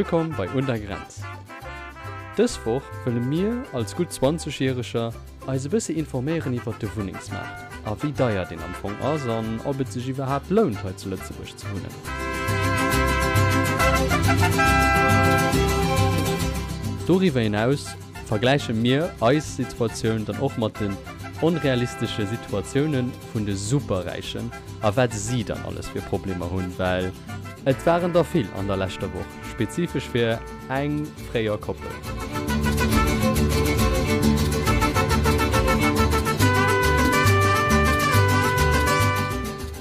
Wëllkomm bei Un der Grenz. Dës Woch wëlle mir als gutt 20 Järeger eis e bëssi informéieren iwwert de Wunnengsmaart a wéi deier deen am Fong ass an ob et sech iwwerhaapt lount hei zu Lëtzebuerg ze wunnen. Doriwwer hinaus vergläiche mir eis Situatioun dann och mat den onrealistesche Situatioune vun de Superräichen a wat si dann alles fir Problemer hunn, well et waren der vill an der leschter Woch, spezifesch fir eng fréier Koppel.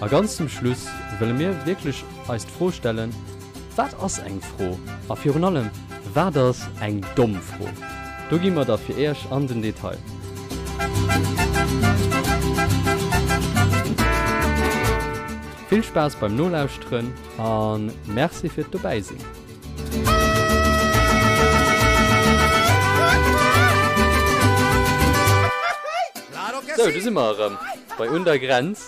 A ganz zum Schluss wëlle mir wierklech eis d'Fro stellen, Wat ass eng Fro? A virun allem, wat ass eng domm Fro? Do gi mer da fir Iech an den Detail. Vill Spaass beim Nolauschteren a Merci fir d'Dobäisinn! Sou, do si mer erëm bei Un der Grenz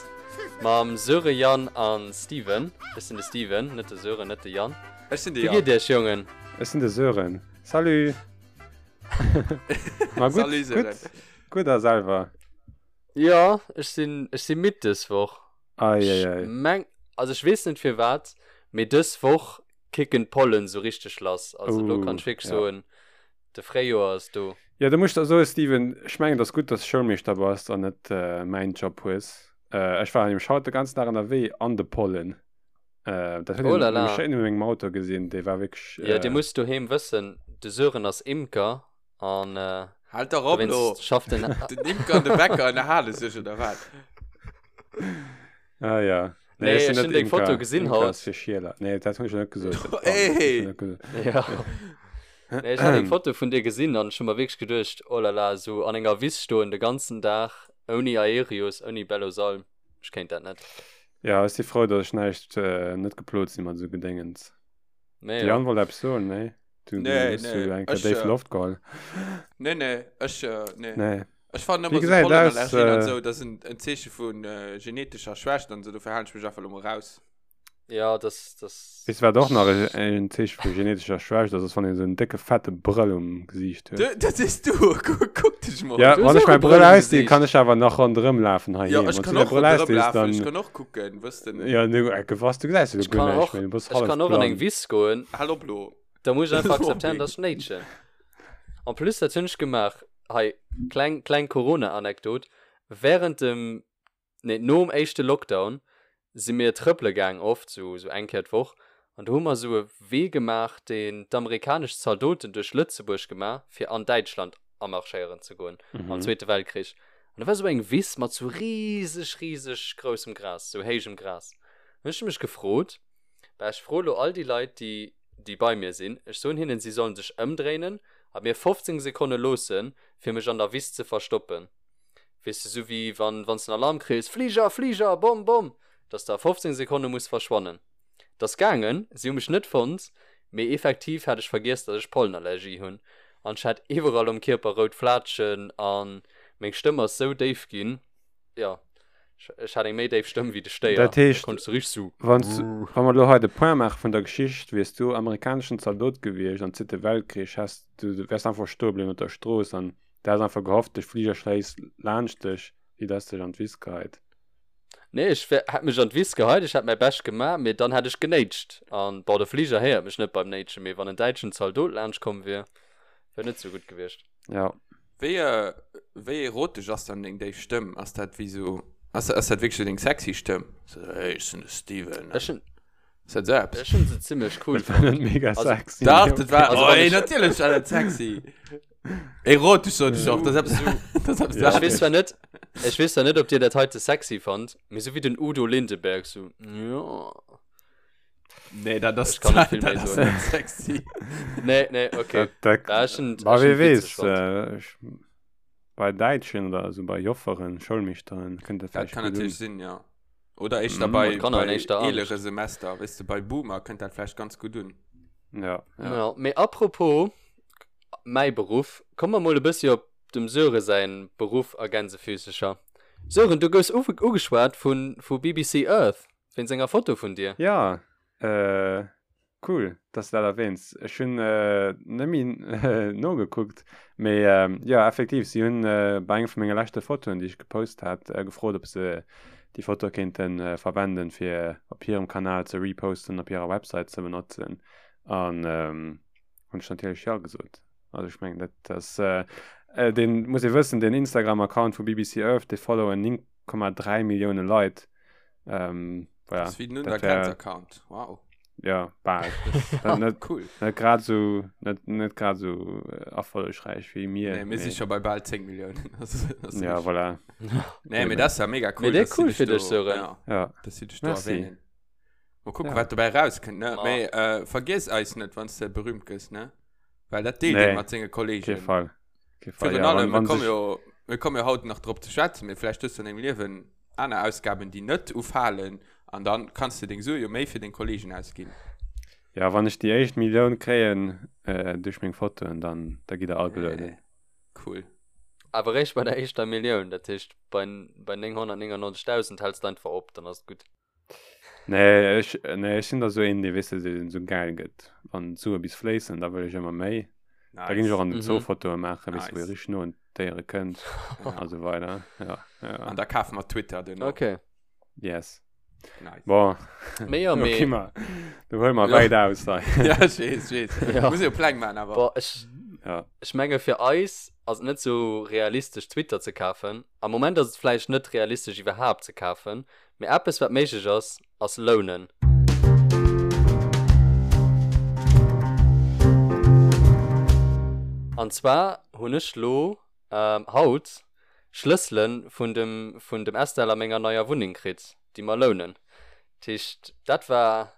mam Sören, Yann a Steven. Ech sinn de Steven, net de Sören, net de Yann. Ech sinn de Wéi Yann. geet iech, Jongen? Ech sinn de Sören. Salut! Ma gutt, Salut Sören. gutt, gutt a selwer? Jo, ech sinn, ech si midd dës Woch. Ei, ei, Ech ei. meng, also ech weess net firwat, mee dës Woch kicken d'Pollen sou richteg lass. Also elo kann Oh, ech wierklech ja. soen, de Fréijoer ass do. Jo, do muss ech der soen, Steven, ech mengen, et ass gutt, dass du Schoulmeeschter bass an net mäin Job hues. Ech war nämlech haut de ganzen Dag ënnerwee an de Pollen. Dat huet Oh een la la. nämlech schéin u mengem Auto gesinn, dee war wierklech. Jo, dir musst doheem wëssen, de Sören ass Imker an Halt dach op elo! dowéinst schafft en. Den Imker an de Bäcker ënnerhale sech, oder wat? Ah ja. Nee, Nee, ech sinn ech hunn net deng Foto Imker. gesinn Imker haut. ass fir Schieler. Nee, dat hunn ech net gesot. Dat Ey! hunn ech net gesot. Ja. Nee, ech hat eng Foto vun dir gesinn an ech hu mer wierklech geduecht, oh la la, esou an enger Wiss stoen de ganzen Dag ouni Aerius, ouni Bellosalm, ech kéint dat net. Ja, ech si frou, datt ech näischt, net geplot si mat esou Gedéngens. Nee, De ja. Yann wollt eppes soen, nee? Du, du Nee, hues nee, du eng Kéier ech, déif äh, Loft geholl. Nee, nee, ech, äh, nee. Nee. Ech fannen Wéi ëmmer sou gesäit et aus, Pollenallergien an äh, sou, dat ass en, en Zeeche vun äh, genetescher Schwächt an sou, dofir halen ech mech einfach lo mol raus. Ja, das, das. Weess du wat och nach en Zeeche vu genetescher Schwächt ass, ass wann een esou en décke fette Brëll um Gesiicht huet. Du, dat sees du, kuck, kuck dech mol. Ja, Du wann hues ech och mäi e Brëll Brëll um ausdinn, kann Gesiicht. ech awer nach ronderëm lafen Ja, heiheem. ech Wann du kann däi och Brëll ronderëm ausdees, lafen, ech dann. kann och kucken, wëss de. Ja, du, äh, was, du gesäis jo Ech guer kann näischt och, méi, du bass ech hallef kann och an eng blann. Wiss goen. Hal op lo. Da muss ech einfach akzeptéieren, Mobbing. dass ech néitschen. En plus, dat hunn ech gemaach, hei, kleng, kleng Corona-Anekdot, Während dem nee, nom éischte Lockdown si mir trëppele gaang, oft, sou, sou eng Kéier d'Woch, an do hu mer sou e Wee gemaach, deen d'amerikanesch Zaldoten duerch Lëtzebuerg gemaach, fir an Däitschland amarschéieren ze goen, am Zweete Weltkrich. An do war sou eng Wiss mat sou riseg, riseg groussem Gras, sou héijem Gras. An ech hu mech gefrot, bah, ech froe lo all déi Leit, déi, déi bei mir sinn, ech soen hinnen, si sollen sech ëmdréinen a mir 15 Sekonne loossen, fir mech an der Wiss ze verstoppen. Weess de, sou wéi wann wann s den Alarm kriss, Fliger, Fliger, Bomm, Bomm, dass de a 15 Sekonne muss verschwannen. 't ass gaangen, si hu mech net fonnt, mee effektiv hat ech vergiess, dass ech Pollenallergie hunn an ech hat iwwerall um Kierper rout Flaatschen a meng Stëmm ass sou déif ginn, jo, ech hat eng méi déif Stëmm wéi de Stéier, Dat da heescht, konnt ech sou richteg sou. wann s, wa mer elo hei de Point maache vun der Geschicht, wiers du amerikaneschen Zaldot gewiescht am Zweete Weltkrich, häss du, wäers einfach stoe bliwwen op der Strooss an Du has einfach gehofft, de Fliger schléisst laanscht dech, wéi dass dech an d'Wiss geheit. Nee, ech wär, hätt mech an d'Wiss geheit, ech hätt mäi Bescht gemaach, mee dann hätt ech genéitscht. An, bon, de Fliger héiert mech net beim Néitschen, mee wann en däitschen Zaldot laanscht komm wier, wär net sou gutt gewiescht. Ja. Wéi, wéi erotesch ass dann deng déif Stëmm? Ass dat wéi sou, ass, ass dat wierklech sou deng sexy Stëmm? Sou, hey, ech sinn de Steven. Ech hunn. Ass dat sou eppes? Ech hunn se zimmlech cool Dat war net fonnt. mega Also, sexy. Dach, mee dat war, Also, oh, wann ey, ech- natierlech war dat sexy. Erotesch sot ech och, dat ass eppes, dat ass eppes Ja. Ech weess zwar net, ech weess zwar net, ob dir dat heite sexy fannt, mee sou wéi den Udo Lindenberg, sou, jo. Nee, dat ass, Ech kann net vill dat méi ass soen. net sexy. Nee, nee, okay. Dat, dat, Ja, ech hunn, ma ech wie hunn witzeg weess, fonnt. äh, ech, bei Däitschen oder esou bei Jofferen, Schoulmeeschteren kënnt dat Dat vläicht kann gutt un. natierlech sinn, ja. Oder éischter Mhm. bei, Kanner bei éischter Angscht. eelere Semester, weess de, bei Boomer kënnt dat vläicht ganz gutt un. Ja, ja. Ja, mee apropos mäi Beruff, komme mer mol e bëssi op dem Sören säin Beruff a Gänsefüßecher. Sören, du goufs ugeschwat vu vu BBC Earth wéinst enger Foto vun dir. Ja, äh. Cool, dass du dat erwähns. Ech hunn net méi nogekuckt, mee jo, effektiv, si hunn bei engem vu menge leschte Fotoen, déi ech gepost hat, gefrot, ob se déi Foto kéinte verwenden, fir op hirem Kanal ze reposten, op hirer Website ze benotzen. An hunn ech natierlech jo gesot. Also ech mengen, dat ass, deen, muss ee wëssen, deen Instagram-Account vu BBC Earth, dee followen 9,3 Millioune Leit. Ähm, voilà. Das ist wie den Untergrenz-Account. Wow. Ja, bal. net, cool. Net grad so, net, net grad so äh, erfollegräich wéi mir. Nee, mir sind schon bei bald 10 Millionen. Das, das ja, voilà. Nee, mir das ist ja mega cool. Mee dat cool fir dech, Sören. Ja, ja. Dass sie dich da erwähnen. Mal gucken, ja. wat dobäi rauskënnt, ne? Oh. Mee, äh, vergiss eis net, wann du berühmt gëss, ne? Well dat deelt nee. mat senge Kollegen. Kee Fall. Kee Fall. Virun ja, allem, wir kommen jo, wir kommen jo haut nach drop ze schwätzen, mee vläicht hues du an dengem Liewen aner Ausgaben, déi net ufalen, an dann kanns de deng Sue jo méi fir deng Kollegen ausginn. Ja, wann ech déi éischt Millioun kréien äh, duerch meng Fotoen, dann da gitt der all belounen. Cool. Awer réischt bei der éischter Millioun, dat heescht bei, bei 999.000 häls de einfach op, dann ass et gutt. Nee, ech, nee, ech sinn da sou een, dee, weess de, deen sou gäil gëtt. Wann d'Sue bis fléissen, da wëll ech ëmmer méi. Nice. Da ginn ech och an den Zoo Mhm. Fotoe maachen, weess de, wou ee Nice. richteg no un d'Déiere kënnt Ja. a sou weider. Ja, ja. An da kafe mer Twitter duerno. Okay. Yes. Nice. Bon. Mee jo, Okay, mee. ma, du huel mer Ja. wäit aus hei. Ja, ech weess, ech weess. Ja. Muss jo Pläng maachen, awer. Boah, ech, Ja. ech menge fir eis ass et net sou realistesch Twitter ze kafen. Am Moment ass et vläicht net realistesch iwwerhaapt ze kafen, Mee eppes wat méiglech ass, ass lounen. An zwar hunn ech lo haut Schlëssele vun dem vun dem Estelle a menger neier Wunneng kritt, déi mer lounen. Dat heescht dat war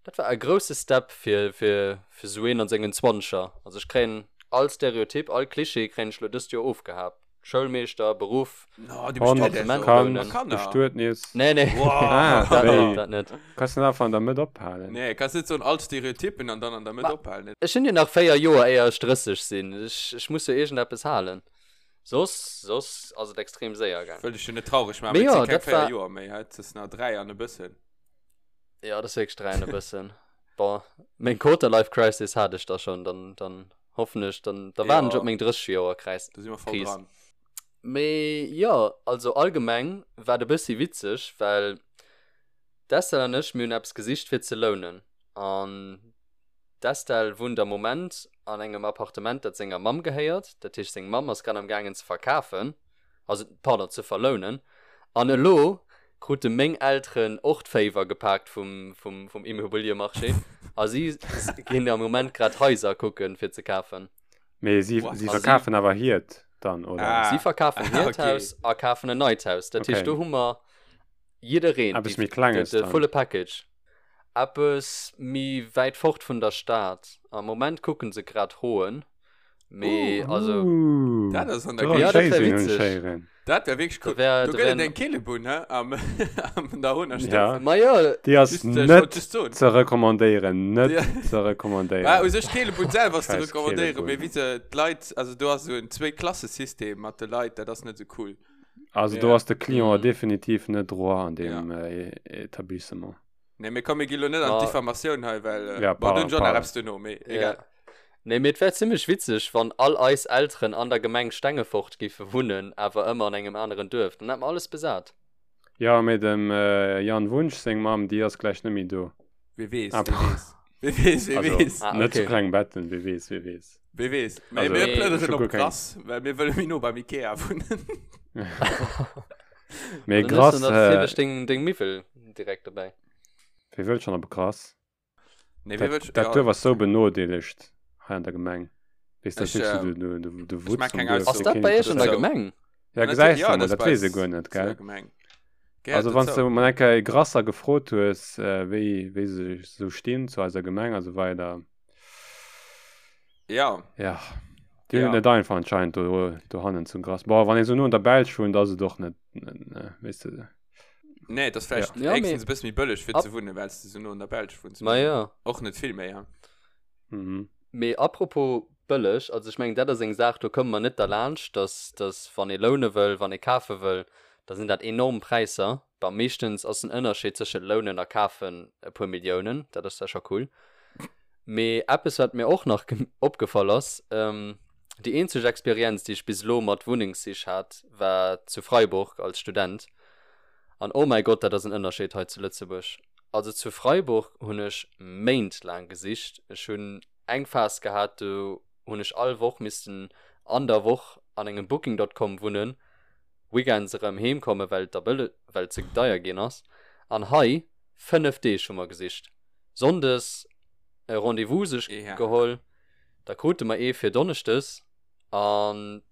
dat war e grousse Step fir fir fir sou een an sengen Zwanzeger. Also ech kréien all Stereotyp, all Klischee kréien ech lo dëst Joer ofgehaapt. Schoulmeeschter, Beruff, No, du bist Hond, Appartement Kand, Kanner. Bestuetnis. Nee, nee. Wow. Ah, Dat net, wéi? dat net. Kanns du net einfach an der Mëtt ophalen? Nee, kanns net soen all Stereotypen an dann an der Mëtt Ma ophalen. ech hunn jo nach 4 Joer éier ech 30 sinn. Ech, ech muss jo iergendeppes halen. Soss, soss ass et extrem séier gaang. Wëll dech jo net traureg maachen, Mee mee et jo, si keng dat 4 war. Joer méi, hä? Et ass nach 3 an e bëssen. Jo, dat ass wierklech 3 an e bëssen. Bon, meng Quarter-Life Crisis hat ech da schonn, dann, dann hoffen ech, dann, da waarden ech Jo. op meng 30 Joer Kris. Do si mer voll dran. Mee jo, also allgemeng war et e bëssi witzeg, well d'Estelle an ech, mir hunn eppes gesicht fir ze lounen. An d'Estelle wunnt am Moment an engem Appartement, dat senger Mamm gehéiert. Dat heescht, seng Mamm ass grad am gaangen ze verkafen, also pardon, ze verlounen. An elo krute meng Elteren och d'Féiwer gepaakt vum, vum, vum Immobiliemarché a si ginn am Moment grad Haiser kucken, fir ze kafen. Mee si, What? si A si verkafen awer hiert dann, oder? Ah. Si verkafen hiert Okay. Haus a kafen en neit Haus. Dat heescht, Okay. do hu mer jiddereen, Eppes déi, méi Klenges de, de dann. volle Package. Eppes méi wäit fort vun der Stad. Am Moment kucken se grad Hoen. Mee Uh. also. Uh, Dat ass an der do Ja, dat wär Schéi sinn, hunn witzeg. ech héieren. Dat wär wierklech Da cool. wär, Do da gëtt et wären. eng Keelebunn, hä? Am, am der Honer Stëff. Ja. Ma jo. Déi ass Just, äh, ich net wollt just soen. ze recommandéieren, net Ja. ze recommandéieren. Bah, u sech d'Keelebunn selwer ass ze Scheiß recommandéieren, mee Keelebunn. wéi se d'Leit, also do ass esou en Zwéi-Klasse-System mat de Leit, dat ass net esou cool. Also do Ja. ass de Client Mhm. definitiv net droit an Ja. deem äh, Etablissement. Nee, mee komm, mir gi lo net an Ma d'Diffamatioun hei, well, äh, Ja, bon, do pardon, hunn ech och nach pardon. eppes duerno, mee Ja. egal. Nee, mee et wär zimmlech witzeg, wann all eis Elteren an der Gemeng Stengefort giffe wunnen, awer ëmmer an engem aneren Duerf. Dann hätt mer alles besat. Jo, mee dem Jan Wunsch seng Mamm, déi ass gläich net méi do. Wee weess, Ah, wee weess. Wee weess, wee also, weess. Ah, net zu okay. Klengbetten, wee weess, wee weess. Wee weess. Mee Also, mir Mee ech plënneren hu op guer keng. Grass, well mir wëlle méi no beim Ikea wunnen. Mee Dann hues Grass, du natierlech deng, deng Miwwel direkt dobäi. Wee wëllt schonn op Grass? Nee, wee Dat, wëllt, dat ja. Duerf ass sou benodeelegt hei an der Gemeng. Weess, dat Ech, ass wierklech ähm, sou de, de, de ech Wutz maan vum keng Duerf, Ass dee Aussoen dat keen bei Iech an der interesséiert. dozou. Gemeng? Ja, Ja, natierlech, gesäis ja, de mol, dat ass dat bei weess ee eis guer net, zu der gell? Gemeng. Gehéiert Also, wann s dozou. de mol eng Kéier e Grasser gefrot hues, äh, wéi, wéi se sou stinn zu eiser Gemeng a sou weider. Ja. Ja, déi hunn et Ja. net einfach anscheinend do, dohannen zu Grass. Boah, wann ee sou no an der Belsch wunnt, ass et och net, net, ne, weess de. Nee, et ass vläicht Ja, mee héchstens e bësse méi bëlleg fir ab ze wunnen, well s de sou no an der Belsch wunns, Ma mee jo. och net vill méi, ja. Mhm. Mee apropos bëlleg, also ech mengen dat ass eng Saach, do komme mer net derlaanscht, dass, dass wann ee loune wëll, wann ee kafe wëll, da sinn dat enorm Präisser. Bon, meeschtens ass den Ënnerscheed tëschent lounen a kafen e puer Milliounen, dat ass da scho cool. Mee eppes wat mir och nach opgefall ass, déi eenzeg Experienz déi ech bis elo mat Wunnengssich hat, war zu Freiburg als Student. An oh mäi Gott, dat ass en Ënnerscheed hei zu Lëtzebuerg. Also zu Freiburg hunn ech Méint laang gesicht. Ech hunn eng Phas gehat, do hunn ech all Woch missten an der Woch an engem Booking dot com wunnen, Weekends erëm heem kommen, well et da bëlle, well et ze deier ginn ass. An hei, 5 Deeg hu mer gesicht. Sonndes e Rendez-vous sech geholl, da krute mer ee fir Donneschdes an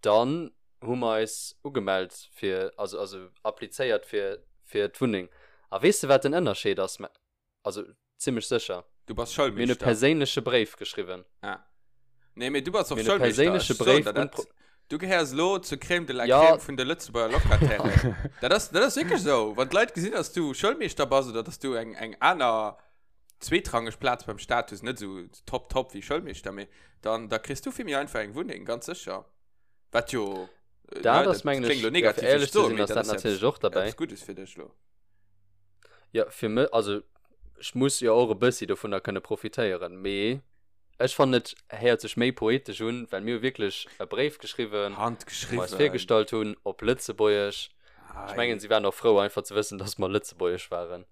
dann hu mer eis ugemellt fir, also also applizéiert fir fir d'Wunneng. A weess de wat den Ënnerscheed ass? Also zimmlech sécher. Du bass Schoulmeeschter. Mir hunn e perséinleche Bréif geschriwwen. Ah. Nee, mee du bass och Schoulmeeschter. Mir hunn e perséinleche Bréif un d'Pro. Du gehéiers elo zur Crème de la ja. Crème vun de Lëtzebuerger Locatairen. dat ass, dat ass wierklech esou. Wann d'Leit gesinn, dass du Schoulmeeschter bass oder dass du eng, eng aner zweetrangeg Plaz beim Staat hues, net esou top top wéi Schoulmeeschter, mee dann da kriss du vill méi einfach eng Wunneng, ganz sécher. Wat jo. Äh, dat ass, mengen ech, ja, fir éierlech ze sinn, ass dat natierlech och derbäi. Eppes Guddes fir dech lo. Ja, fir mech, also ech muss jo och e bëssi dovunner kënne profitéieren, mee ech fannen et héiert sech méi poetesch un, well mir hu wierklech e Bréif geschriwwen, wou mer eis virgestallt hunn op Lëtzebuergesch. Ech mengen, si waren och frou einfach ze wëssen, dass mer Lëtzebuergesch waren.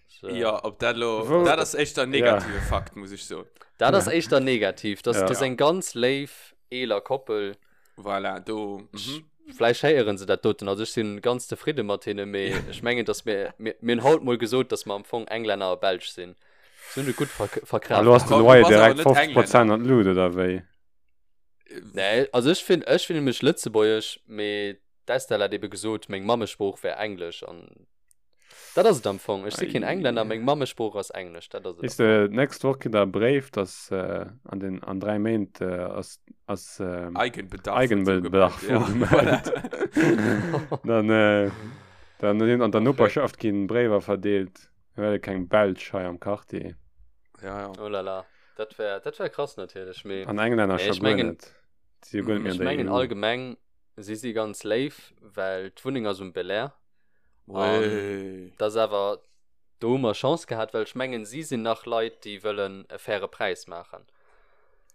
So. Ja, ob dat lo, dat ass éischter negative Fakt, muss ech soen. Dat ass éischter negativ. Dat ass eng ganz léif eeler Koppel. Voilà, do. Mhm. Vläicht héieren se dat doten. Also ech sinn ganz zefridde mat hinne, mee ech mengen, dass mir, mir, mir hunn haut mol gesot, dass mer am Fong Englänner a Belsch sinn. Se hunn et gutt verk verkraft. Elo ass de Loyer direkt 50 Prozent an d'Lut, oder wéi? Nee, also ech finn, ech fillen mech lëtzebuergesch, mee d'Estelle hat ebe gesot, meng Mammesprooch wär Englesch an Dat ass et am Fong. Ech si keen Englänner, meng Mammesprooch ass Englesch. Dat ass et. Weess de, d'nächst Woch kritt der e Bréif, dass an den, an 3 Méint ass, ass Eigenbedarf Eigenbedarf ugemellt. Dann, dann sinn an der Noperschaft ginn Bréiwer verdeelt. Mir wëlle keng Belsch hei am Quartier. Ja, ja. Oh la la. Dat wär, dat wär krass natierlech, mee. An Englänner scho guer net. Si jo guer net méi an der EU. Ech mengen allgemeng, si si ganz léif, well d'Wunneng ass um Belair. An dat ass awer, do hu mer Chance gehat, well ech mengen, si sinn nach Leit, déi wëllen e faire Präis maachen.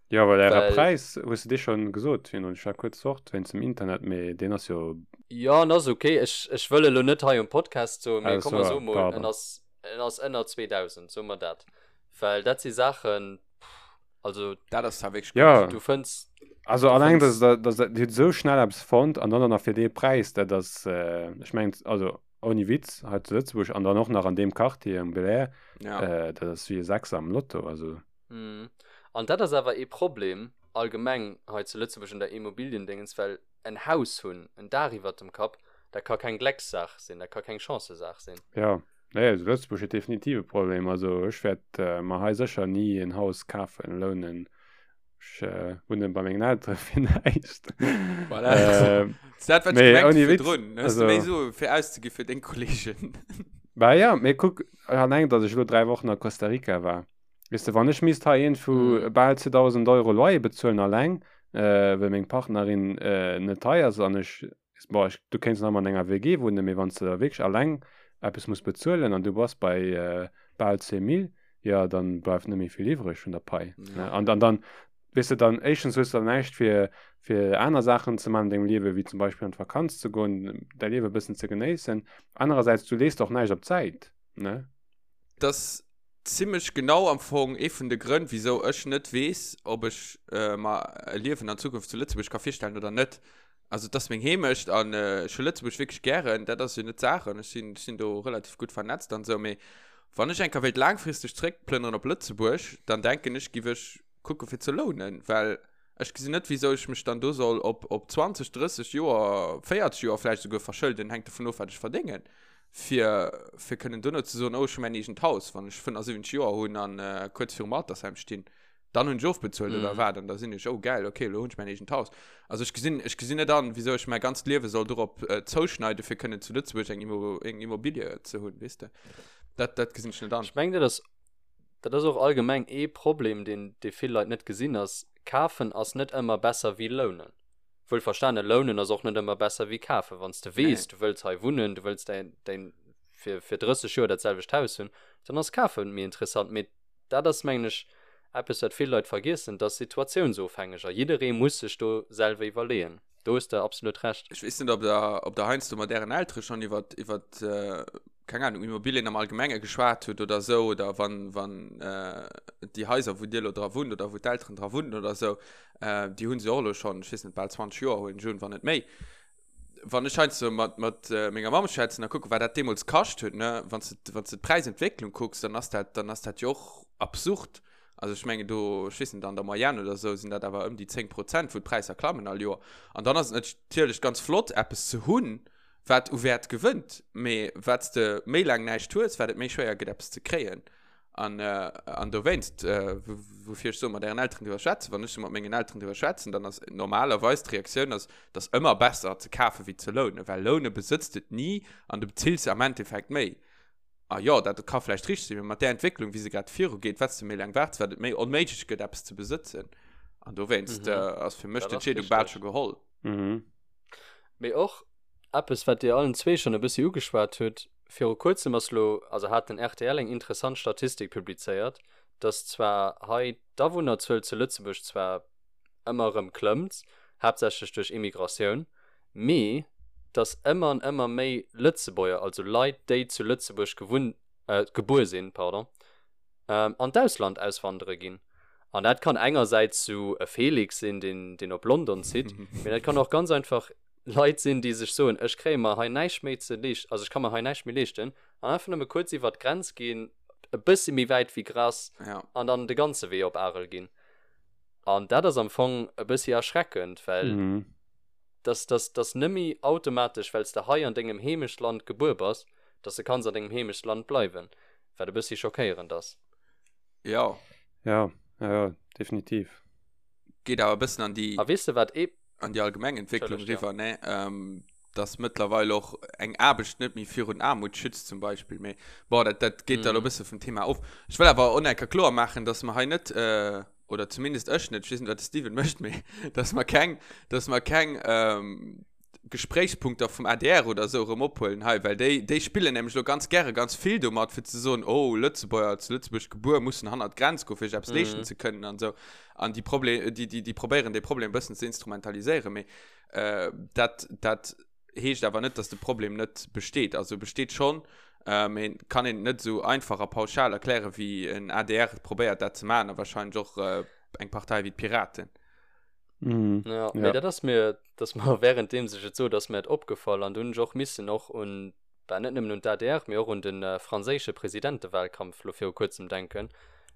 Jo, well äre Präis, hues de dee schonn gesot virdrun? Ech war kuerz fort wéinst dem Internet, mee deen ass jo. Jo, en ass ok. Ech, ech wëll elo net hei um Podcast soen, mee komm mer soe mol, en ass, en ass ënner 2.000, soe mer dat. Well dat si Saachen, also. Dat ass zwar wierklech gutt. Jo. Du fënns. Also alleng, dass der, dass der, Dir hutt esou schnell eppes fonnt an dann och nach fir dee Präis, dat ass, ech mengen, also ouni Witz, hei zu Lëtzebuerg an dann och nach an deem Quartier um Belair, Ja. dat ass wéi e Sechser am Lotto, also. An dat ass awer ee Problem allgemeng hei zu Lëtzebuerg un der Immobiliendéngens, well en Haus hunn, en Daach iwwert dem Kapp, dat ka keng Gleckssaach sinn, dat ka keng Chancësaach sinn. Jo, nee, also Lëtzebuerg huet definitiv e Problem. Also ech wäert mer hei sécher ni en Haus kafen, lounen. Ech äh, wunnen bei mengen Elteren fir näischt. Voilà. Äh, dat wat nee, ouni Witz, drun. Also, méi so fir auszegi fir deng Kollegen. Bah ja, mee kuck, alleng datt ech elo 3 Wochen a Costa Rica war. Weess de, wann ech misst hei een vu mm. bal 2000 Euro Loyer bezuelen alleng, äh, well meng Partnerin äh, net hei ass an ech Bon, ech, du kéints nach ëmmer an enger WG wunnen, mee wann s de da wierklech alleng eppes muss bezuelen an du bass bei bal 10 Mille, jo, dann bleift net méi vill iwwreg vun der Pai. Ja. An dann, dann, weess de, dann éischtens hues du dann näischt fir, fir aner Saachen ze maachen an dengem Liewen, wéi zum Beispill an d'Vakanz ze goen, däi Liewe e bëssen ze genéissen. Anerersäits, du lees och näischt op d'Säit, ne? Dass zimlech genau am Fong ee vun de Grënn, wisou ech net weess, ob ech mer e Liewen an Zukunft zu Lëtzebuerg ka virstellen oder net. Also et ass meng Heemecht an ech hu Lëtzebuerg wierklech gären, dat ass jo net d'Saach an ech sinn, ech sinn do relativ gutt vernetzt an esou, mee wann ech eng Kéier wéilt laangfristeg zréckplënneren op Lëtzebuerg, dann denken ech, giff ech kucke fir ze lounen, well ech gesinn net, wisou ech mech dann do soll op, op 20, 30 Joer, 40 Joer vläicht esouguer verschëlden, hänkt dovun of, wat ech verdéngen, fir, fir kënnen duerno ze soen, oh ech hu mäin eegent Haus, wann ech 75 Joer hunn an kuerz virum Altersheim stinn. Dann hunn ech ofbezuelt mm. oder wat an da sinn ech oh geil okay lo hunn ech mäin eegent Haus. Also ech gesinn ech gesinn net an wieso ech mäi ganzt Liewe soll dorop äh, zouschneide fir kënnen zu Lëtzebuerg eng Immo eng Immobilie ze hunn weess de. Dat dat gesinn ech net an. Ech meng dat ass dat ass och allgemeng ee Problem deen dee vill Leit net gesinn ass kafen ass net ëmmer besser wéi lounen. Wuel verstane lounen ass och net ëmmer besser wéi kafen. Wann s de weess nee. du wëlls hei wunnen, du wëlls däin däin fir fir 30 Joer dat selwecht Haus hunn, dann ass kafen méi interessant mee. Dat ass, mengen ech, eppes, wat vill Leit vergiessen, dat ass situatiounsofhängeg a jidderee muss sech do selwer iwwerleeën. Do hues de absolut Recht. Ech weess net, ob der, ob der heiansdo mat ären Eltere schonn iwwer, iwwer, keng Ahnung, Immobilien am Allgemenge geschwat hutt oder esou, oder wann, wann déi Haiser, wou Dir elo dra wunnt oder wou d'Elteren dra wunnen oder esou, déi hu se och elo schonn, ech weess net, bal 20 Joer huelen ech un, wann net méi. Wann ech heiansdo mat, mat menger Mamm schwätzen a kucken, wat dat deemools kascht huet, ne, wann s de, wann s de d'Präisentwécklung kucks, dann ass dat, dann ass dat jo och absurd. Also ech mengen do, ech weess net, an der Moyenne oder esou sinn dat awer ëm déi 10 Prozent, wou d'Präisser klammen all Joer. An dann ass et natierlech ganz flott, eppes ze hunn, wat u Wäert gewënnt. Mee wat s de méi laang näischt hues, wat et méi schwéier gëtt, eppes ze kréien. An, an dowéinst, woufir ech soe mat ären Elteren driwwer schwätzen, wann ech sou mat mengen Elteren driwwer schwätzen, dann ass normalerweis d'Reaktioun ass, et ass ëmmer besser ze kafen, wéi ze lounen, well loune besëtzt et ni an du bezills am Endeffekt méi. A jo, dat ka vläicht richteg sinn, mee mat där Entwécklung, wéi se grad virugeet, wat s de méi laang waarts, wat et méi onméiglech gëtt, eppes ze besëtzen. An dowéinst ass fir mech d'Entscheedung bal scho geholl. Mee och eppes, wat Dir allen zwee schonn e bëssi ugeschwat hutt, Viru kuerzem ass lo, also hat den rtl eng interessant Statistik publizéiert, dass zwar hei d'Awunnerzuel zu Lëtzebuerg zwar ëmmer erëm klëmmt, haaptsächlech duerch Immigratioun, mee dass ëmmer an ëmmer méi Lëtzebuerger, also Leit, déi zu Lëtzebuerg gewunn, gebuer sinn, pardon, an d'Ausland auswandere ginn. An dat kann engersäits sou e Felix sinn, deen, deen op London zitt, mee dat kann och ganz einfach Leit sinn, déi sech soen, ech kréie mer hei näischt méi ze leeschten, also ech ka mer hei näischt méi leeschten, an einfach nëmme kuerz iwwert d'Grenz ginn, e bëssi méi wäit wéi Grass, an dann de ganze Wee op Arel ginn. An dat ass am Fong e bëssi erschreckend, well dass, dass, dass nëmme automatesch, well s de hei an dengem Heemechtsland gebuer bass, dass de kanns an dengem Heemechtsland bleiwen, wat e bëssi schockéierend ass. Jo. Jo, jo, jo, definitiv. Geet awer e bëssen an déi. A weess de wat ee. An déi allgemeng Entwécklung eriwwer, ne? Dass mëttlerweil och eng Aarbecht net méi virun Aarmut schützt zum Beispill. Mee bon, dat, dat geet da elo e bësse vum Thema of. Ech wëll awer och nach eng Kéier kloer maachen, dass mer hei net, oder zumindest ech net, ech weess net, wat de Steven mécht, mee dass mer keng, dass mer keng Gespréichspunkter vum adr oder esou erëm ophuelen hei, well déi, déi spillen nämlech elo ganz gäre ganz vill domat, fir ze soen, oh, Lëtzebuerger, zu Lëtzebuerg gebuer, mussen hannert d'Grenz goen, fir sech eppes leeschten ze kënnen an esou. An déi Proble-, déi, déi, déi probéieren dee Problem e bëssen ze instrumentaliséieren, mee dat, dat heescht awer net, dass de Problem net besteet. Also e besteet schonn, mee et kann een et net esou einfach a pauschal erklären, wéi en adr probéiert dat ze maachen a wahrscheinlech och eng Partei wéi d'Piraten. Mm, ja, ja. dat ass mir dass mer währenddeem sech et sot ass mir et opgefall an dunn och missen och un bah, net nëmmen un d'ADR, mee och un den äh, franséische Presidentewahlkampf lo viru kuerzem denken.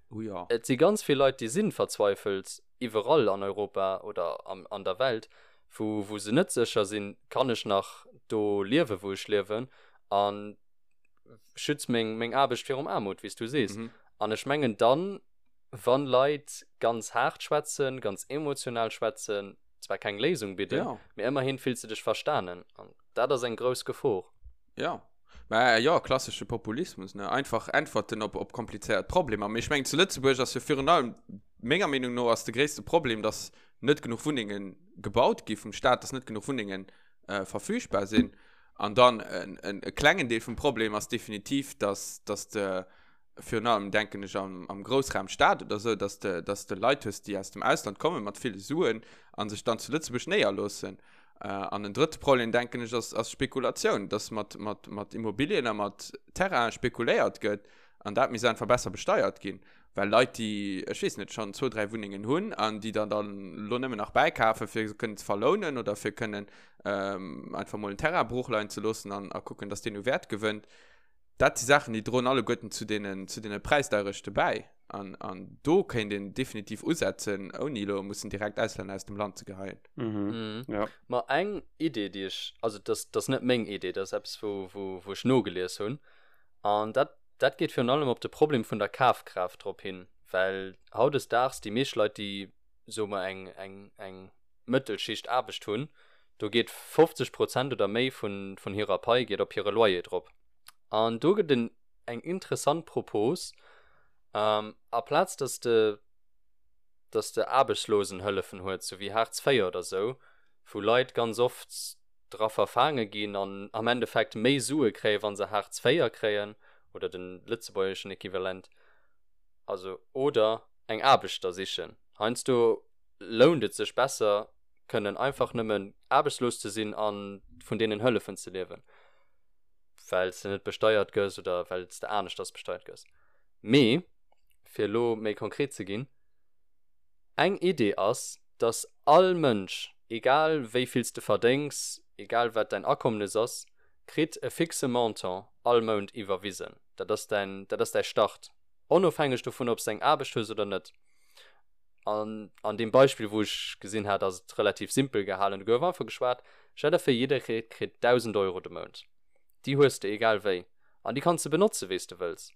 Oh ja. Et si ganz vill Leit, déi sinn verzweifelt iwwerall an Europa oder am, an der Welt, wou, wou se net sécher sinn, kann ech nach do liewen, wou ech liewen an schützt meng, meng Aarbecht virum Aarmut, wéi s du sees. Mhm. An ech mengen dann, wann Leit ganz haart schwätzen, ganz emotional schwätzen, zwar keng Léisung bidden, ja. mee ëmmerhin fills de dech verstanen. An dat ass eng grouss Gefor. Ja. Mä jo, klassesche Populismus, ne? Einfach Äntwerten op, op komplizéiert Problemer. Mee ech mengen, zu Lëtzebuerg ass jo virun allem, menger Meenung no, ass de gréisste Problem, dass net genuch Wunnenge gebaut gi vum Staat, dass net genuch Wunnengen äh, verfügbar sinn. An dann en, en, e klengen Deel vum Problem ass definitiv, dass, dass de, virun allem denken ech am, am Groussraum Stad oder sou, dass de, dass de Leit hues, déi aus dem Ausland kommen mat ville Suen a sech dann zu Lëtzebuerg néierloossen. Äh, an en drëtte Problem, denken ech, ass, ass Spekulatioun, dass mat, mat, mat Immobilien a mat Terrainen spekuléiert gëtt an dat misst einfach besser besteiert ginn. Well Leit, déi, ech weess net, schonn zwou, dräi Wunnengen hunn an déi dann dann elo nëmmen nach bäikafen, fir se kënnen ze verlounen oder fir kënnen ähm, einfach mol en Terrain broochleien ze loossen an a kucken, dass deen u Wäert gewënnt, Dat si Saachen, déi droen alleguerten zu deenen, zu deene Präisdeierechte bäi. An, an do kéint een definitiv usetzen, ouni elo mussen direkt Auslänner aus dem Land ze geheien. Mhm. Mhm. Ja. Ma eng Idee, déi ech, also dat ass net meng Idee, dat ass eppes, wou, wou, wou ech nogelies hunn. An dat, dat geet virun allem op de Problem vun der Kafkraaft drop hin, well hautdesdaags déi meescht Leit, déi, soe mer, eng, eng, eng Mëttelschicht Aarbecht hunn, do geet 50 Prozent oder méi vun, vun hirer Pai geet op hire Loyer drop. An do gëtt en eng interessant Propos, aplaz dass de dass de Aarbechtslosenhëllefen huet, sou wéi Hartz IV oder sou, wou Leit ganz oft dra verfaange ginn an am Endeffekt méi Sue kréien, wa se Hartz IV kréien oder de lëtzebuergeschen Equivalent. Also oder eng Aarbecht da sichen. Heiansdo lount et sech besser, kënnen einfach nëmmen aarbechtslos ze sinn a vun deenen Hëllefen ze liewen, well s de net besteiert gëss oder well s de aneschters besteiert gëss. Mee fir elo méi konkret ze ginn, Eng Idee ass, dass all Mënsch, egal wéi vill s de verdéngs, egal wat däin Akommnes ass, kritt e fixe Montant all Mount iwwerwisen. Dat ass däin, dat ass däi Start, onofhängeg dovun, ob s de eng Aarbecht hues oder net. An an deem Beispill, wou ech gesinn hat, ass et relativ simpel gehalen. Do gouf einfach geschwat, Stell der vir, jidderee kritt 1.000 Euro de Mount. Déi hues de egal wéi. An déi kanns de benotze wéi s de wëlls.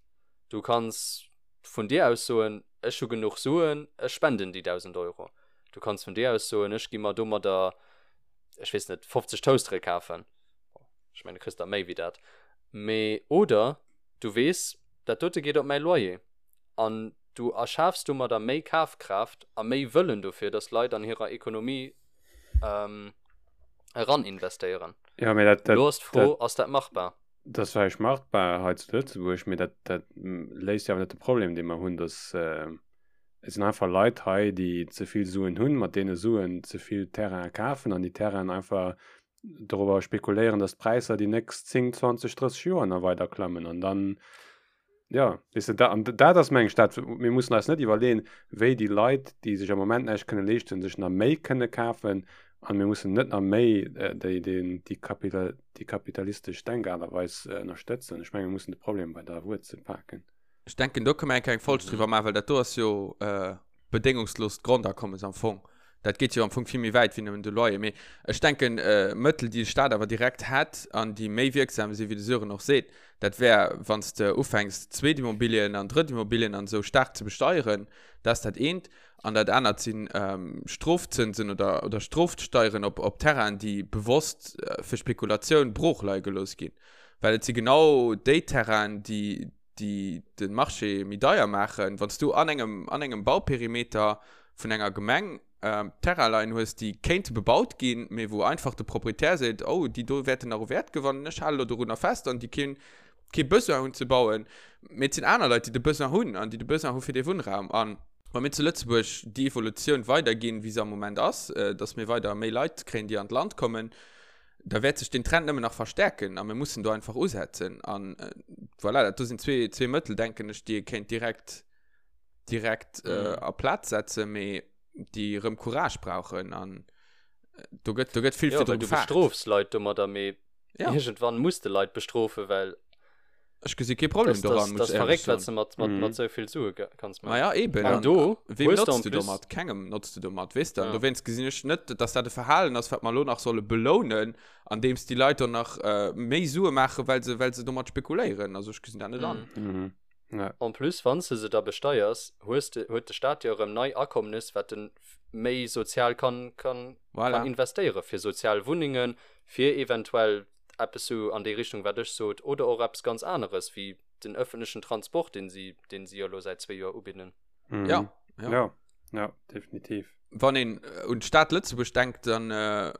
Du kanns vun dir aus soen, ech hu genuch Suen, ech spenden déi 1.000 Euro. Du kanns vun dir aus soen, ech gi mer domadder, ech weess net, 50 Toastere kafen. Ech mengen, du kriss der méi wéi dat. Mee, oder du weess, dat dote geet op mäi Loyer. An du erschafs domadder méi Kafkraaft a méi Wëllen dofir, dass Leit an hirer Ekonomie eraninvestéieren. Ja, mee dat, dat, Elo ass d'Fro, ass dat machbar? Dat ass vläicht machbar hei zu Lëtzebuerg, mee dat, dat léist jo awer net de Problem, dee mer hunn, dass et sinn einfach Leit hei, déi ze vill Suen hunn, mat deene Suen ze vill Terrainen kafen an déi Terrainen einfach dorobber spekuléieren, dass d'Präisser déi nächst 10, 20, 30 Joer nach weider klammen. An dann, ja, weess de, da, an dat ass, meng ech, dat, mir mussen eis net iwwerleeën, wéi déi Leit, déi sech am Moment näischt kënne leeschten, sech nach méi kënne kafen. An mir mussen net nach méi déi, déi, déi Kapital, déi kapitalistesch Denkaart a Weis ënnerstëtzen. Ech menge mir mussen de Problem bei der Wuerzel paken. Ech denken, do kënne mer eng kleng Folg driwwer maachen, well dat do ass jo bedéngungslost Grondakommes am Fong. Dat geet jo am Fong vill méi wäit wéi nëmmen de Loyer. Mee ech denken, Mëttel, déi de Staat awer direkt hätt an déi méi wierksam sinn, wéi de Sören och seet, dat wär, wann s de ufänks, Zweetimmobilien an Drëttimmobilien an esou staark ze besteieren. Dat ass dat eent. An dat anert si Strofzënsen oder, oder Strofsteieren op, op Terrainen, déi bewosst fir Spekulatioun broochleie gelooss ginn. Well et si genau déi Terrainen, déi, déi de Marché méi deier maachen, wann s du an engem, an engem Bauperimeter vun enger Gemeng ähm, Terrain leien hues, déi kéinte bebaut ginn, mee wou einfach de Proprietär seet, oh, déi do wäerten nach u Wäert gewannen, ech hale lo dorunner fest an déi keen, kee Besoin hunn ze bauen. Mee et sinn aner Leit, déi de Besoin hunn an déi de Besoin hu fir dee Wunnraum. An wa mir zu Lëtzebuerg déi Evolutioun weiderginn, wéi se am Moment ass, äh, dass mir weider méi Leit kréien, déi an d'Land kommen, da wäert sech den Trend nëmmen nach verstärken a mir mussen do einfach usetzen. An äh, voilà, dat do sinn zwee, zwee Mëttel, denken ech, déi ee kéint direkt, direkt äh, mhm. a Plaz setzen, mee déi rëm Courage brauchen. An äh, do gëtt, do gëtt vill ja, du bestrofs Leit domadder, mee ja. irgendwann muss de Leit bestrofen, well Ech gesi kee Problem das, das, das verréckt, wat du mat, mat, mhm. mat sou vill Sue kanns maachen. Naja, eben. An do, wem notzt du domat? Kengem notzt du domat, weess du? Ja. Dowéinst gesinn ech net, dass dat e Verhalen ass, wat mer elo nach solle belounen, andeems déi Leit dann nach äh, méi Sue maachen, well se, well se domat spekuléieren. Also ech gesinn dat net an. Mhm. Mhm. Ja. En plus, wann s de se da besteiers, hues de, huet de Staat jo erëm nei Akommnes, wat en méi sozial kann, kann, voilà. kann investéiere fir sozial Wunnengen, fir eventuell eppes sou an déi Richtung, wat ech sot, oder och eppes ganz aneres, wéi den öffentlechen Transport, deen si, deen si jo elo säit zwee Joer ubidden. Mhm. Ja, ja. Ja, ja, definitiv. Wann een äh, un d'Stad Lëtzebuerg denkt, dann, äh,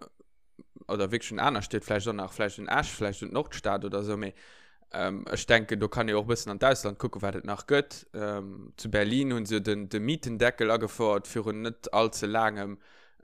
oder wierklech un aner Stied, vläicht och nach, vläicht un Esch, vläicht un d'Nordstad oder sou, mee ähm, ech denken, do kann ee och e bëssen an d'Ausland kucken, wat et nach gëtt. Ähm, zu Berlin hunn se jo den, de Mietendeckel agefouert virun net allze laangem.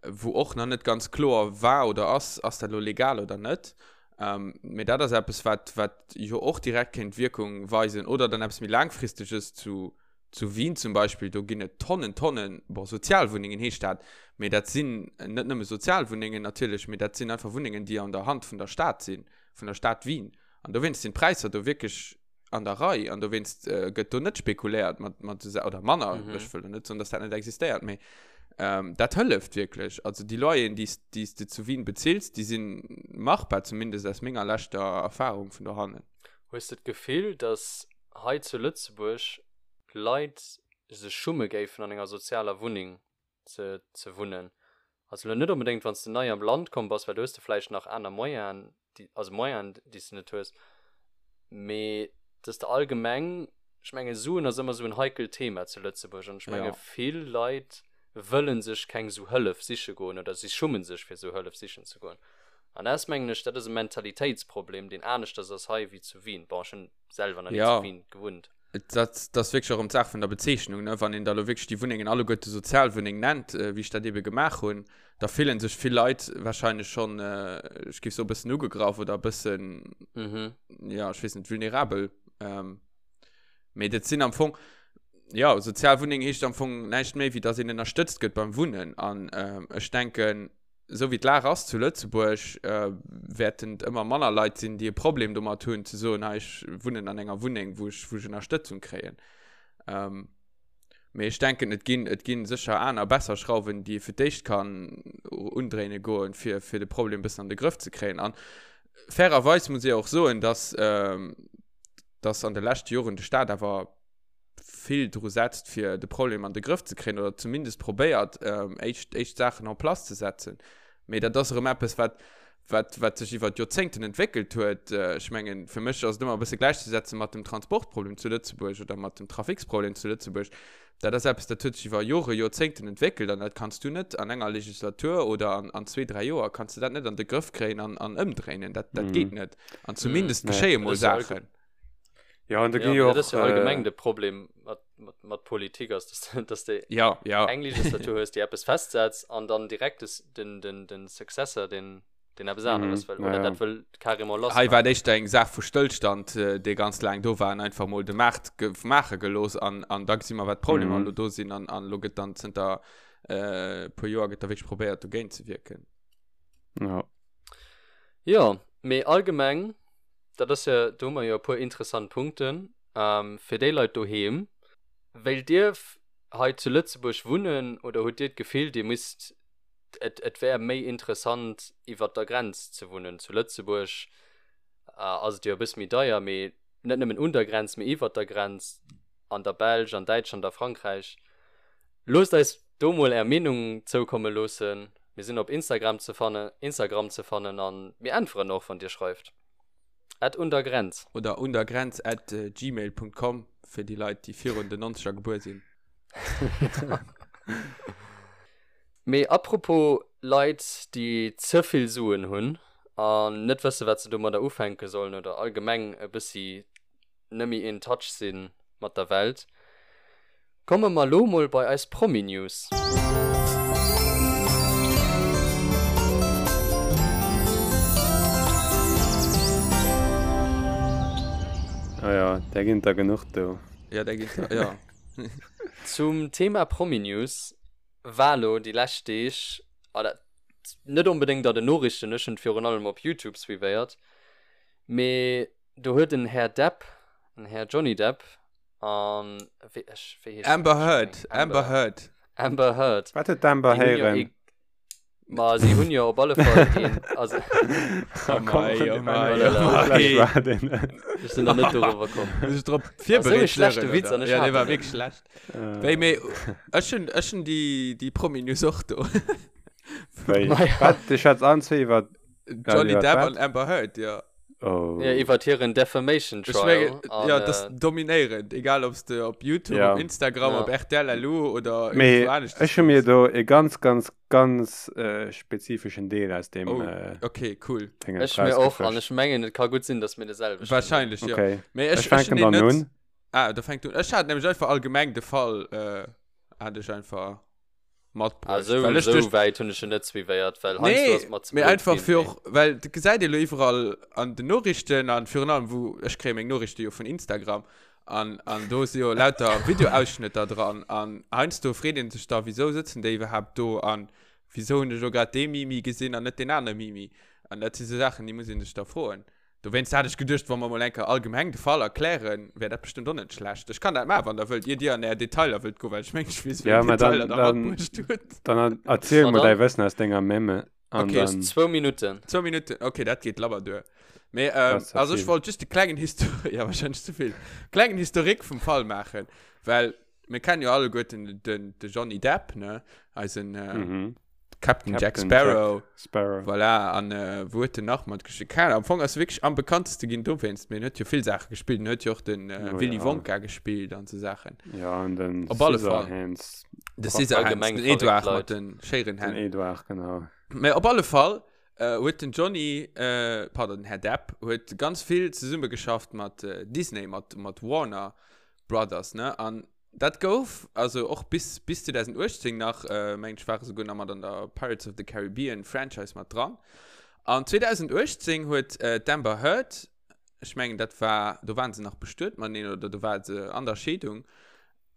wou och nach net ganz kloer war oder ass, ass dat elo legal oder net. Ähm, mee dat ass eppes, wat, wat jo och direkt kéint Wierkung weisen. Oder dann eppes méi laangfristeges zu, zu Wien zum Beispill, do ginn et Tonnen, Tonnen, bon, Sozialwunnengen heescht dat, mee dat sinn net nëmme Sozialwunnengen natierlech, mee dat sinn einfach Wunnengen, déi an der Hand vun der Stad sinn, vun der Stad Wien. An dowéinst sinn d'Präisser do wierklech an der Rei an dowéinst äh, gëtt do net spekuléiert mat, mat so, oder manner, mhm. ech wëll net soen, dass dat net existéiert, mee ähm, dat hëlleft wierklech. Also déi Loyeren, déi déi s de zu Wien bezills, déi sinn machbar, zumindest aus menger leschter Erfahrung vun dohannen. Hues de d'Gefill, dass hei zu Lëtzebuerg Leit sech schumme géifen an enger sozialer Wunneng ze ze wunnen. Also elo net onbedéngt wann s de nei am Land komm bass, well do hues de vläicht nach aner Moyenen, déi also Moyenen déi s de net hues, mee dass de allgemeng, ech menge Suen ass ëmmer esou en heikelt Thema zu Lëtzebuerg an ech menge Ja. vill Leit wëlle sech keng esou Hëllef siche goen oder si schummen sech fir esou Hëllef sichen ze goen. An dat ass mengen ech, dat ass e Mentalitéitsproblem deen aneschters ass hei wéi zu Wien. Bon ech hunn selwer nach ni Ja. zu Wien gewunnt. Dat, dat ass wierklech och erëm d'Saach vun der Bezeechnung, ne? Wann een da lo wierklech déi Wunnengen alleguerte Sozialwunneng nennt, wéi ech dat eebe gemaach hunn, da fillen sech vill Leit wahrscheinlech schonn, ech géif soen, e bëssen ugegraff oder e bëssen, jo, ech weess net, vulnerabel. Mee dat sinn am Fong, jo, Sozialwunneng heescht am Fong näischt méi, wéi datt een ënnerstëtzt gëtt beim Wunnen. An ech denken, esou wéi d'Lag ass zu Lëtzebuerg, wäerten et ëmmer manner Leit sinn, déi e Problem domat hunn, ze soen, hei, ech wunnen an enger Wunneng, wou ech, wou ech Ënnerstëtzung kréien. Mee ech denken, et ginn, et ginn sécher aner, besser Schrauwen, déi ee fir d'éischt kann undréine goen, fir, fir de Problem e bëssen an de Grëff ze kréien. An fairerweis muss ee och soen, dass, dass an de leschte Joren de Staat awer vill dru setzt, fir de Problem an de Grëff ze kréien oder zumindest probéiert, éischt, éischt Saachen en place ze setzen. Mee dat ass erëm eppes, wat, wat, wat sech iwwer Joerzéngten entwéckelt huet. Ech mengen, fir mech ass et ëmmer e bësse gläichzesetze mat dem Transportproblem zu Lëtzebuerg oder mat dem Traficsproblem zu Lëtzebuerg. Dat ass eppes, dat huet sech iwwer Jore, Joerzéngten entwéckelt an dat kanns du net an enger Legislatur oder an, an zwee, dräi Joer kanns du dat net an de Grëff kréien an, an ëmdréinen. Dat, dat geet net. An zumindest geschéie mol Saachen. Ja, an da gi jo och. Dat ass jo allgemeng de Problem mat, mat, mat Politik ass, dass, dass de ja, ja. eng Legislatur hues, déi eppes festsetzt an dann direkt des, den, den, den Successor, den, den eppes aneres wëll. Oder dat wëll carrément lass. Hei war et éischter eng Saach vu Stëllstand, dee ganz laang do war an einfach mol de Maart maache gelooss an, an da gesi mer, wat d'Problemer elo do sinn an, an elo gëtt dann zënter e puer Joer gëtt da wierklech probéiert, dogéint ze wierken. Ja. Jo, mee allgemeng Dat ass jo, do hu mer jo e puer interessant Punkten. Fir déi Leit doheem, Wéilt Dir hei zu Lëtzebuerg wunnen oder hutt Dir d'Gefill, Dir misst, et, et wär méi interessant iwwert der Grenz ze wunnen? Zu Lëtzebuerg ass et jo e bësse méi deier, mee net nëmmen un der Grenz, mee iwwert der Grenz, an der Belsch, an Däitschland, a Frankräich. Loosst eis do mol Är Meenung zoukomme loossen. Mir sinn op Instagram ze fannen, Instagram ze fannen an mir äntweren och wann Dir schreift. At undergrenz. Oder undergrenz at gmail Punkt com fir déi Leit déi virun den 90er gebuer sinn. Mee apropos Leit déi ze vill Suen hunn an net wësse wat se domadder ufänke sollen oder allgemeng e bëssi nëmmi in touch sinn mat der Welt, komme mer lo mol bei eis Promi-News. Ah ja, där ginn der genuch do. Ja, där ginn der, ja. Zum Thema Promi-News war lo déi lescht Deeg, oder net onbedéngt a den Noriichten, ech hunn et virun allem op Youtube suivéiert, mee Do huet en Här Depp, en Här Johnny Depp an wéi ech wéi heescht Amber Heard, Amber Heard. Amber Heard. Wat huet d'Amber héieren? Ma si hunn jo op alle Fall een also Oh mei, oh mei, oh mei. Ech sinn nach net doriwwer komm. Muss ech drop virbereet Esou e schlechte Witz an ech Ja, dee war wierklech schlecht. Wéi mee ech hunn ech hunn déi déi Promi-News och do. Wéi? Wat? Du schwätz an zwee iwwer Johnny Depp an Amber Heard, ja. Oh. Ja, iwwer hiren Defamation Trial. Ech mengen, ja, das äh, dominéierend, egal ob du op YouTube, ja. op Instagram, ja. op RTL LU oder Mee, ech hu mir do e ganz, ganz, ganz äh, spezifischen Deel aus dem. Oh, äh, okay, cool. Ech mir och, an ech mengen, et ka gutt sinn, dass mir de selwechten. Wahrscheinlech, ja. Okay. Mee ech, ech fänken dann un. Ah, da fänkt un. Ech hat nämlech einfach allgemeng de Fall, äh, hat ech einfach. matbruecht. Ah, sou, Well ech sou duerch- wäit hunn ech en net suivéiert, well heiansdo Nee, ass et mer ze mee blöd einfach ginn, fir mee. och, well dat gesäit ee lo iwwerall an den Noriichten an virun allem wou, ech kréie meng Noriichte jo vun Instagram an, an do si jo lauter Videoausschnëtter dran an heiansdo freet een sech da, wisou sëtzen déi iwwerhaapt do an wisou hunn ech elo grad dee Mimi gesinn an net deen anere Mimi an dat si sou Saachen, déi muss ee sech da froen. Dowéinst hat ech geduecht, wa mer mol eng Kéier allgemeng de Fall erklären, wär dat bestëmmt och net schlecht. Ech kann dat maachen, wann Der wëllt, ier Dir an Är Detailer wëllt goen, well ech mengen, ech weess, wéi Ja, eng mä dann, Detailer Der dann, matbruecht hutt. dann erziel Ma mol däi dann. Wëssen aus denger Memme an Okay. Du hues dann. zwou Minutten. Zwou Minutten, okay, dat geet labber duer. Mee, Dat ähm, ass ze also ech vill. wollt just e klengen Histo-, ja, wahrscheinlech ze vill, klengen Historique vum Fall maachen, well mir kennen jo alleguerten den, de Johnny Depp, ne, eisen, äh, Mhm. Captain Jack Captain Sparrow. Jack Sparrow. Voilà, an äh, wou huet en nach matgespillt? Keine Ahnung, am Fong ass e wierklech am bekannteste ginn dowéinst, mee en huet jo vill Saache gespillt. En huet jo och den äh, Oh, Willy ja. Wonka gespillt an sou Saachen. Ja, an den Op alle Fall. Scissorhands. De Scissorhands, Allgemeng den verréckt Edouard Leit. mat den Schéirenhänn. Den Edouard, genau. Mee op alle Fall äh, huet den Johnny, äh, pardon, den Här Depp, huet ganz vill zesummegeschafft mat äh, Disney, mat, mat Warner. Brothers, ne? An dat gouf, also och bis, bis 2018 nach, äh, mengen ech, ware souguer nach mat an der Pirates of the Caribbean Franchise mat dran. An 2018 huet äh, d'Amber Heard, ech mengen, dat war, do waren se nach bestuet mateneen oder do war se an der Scheedung,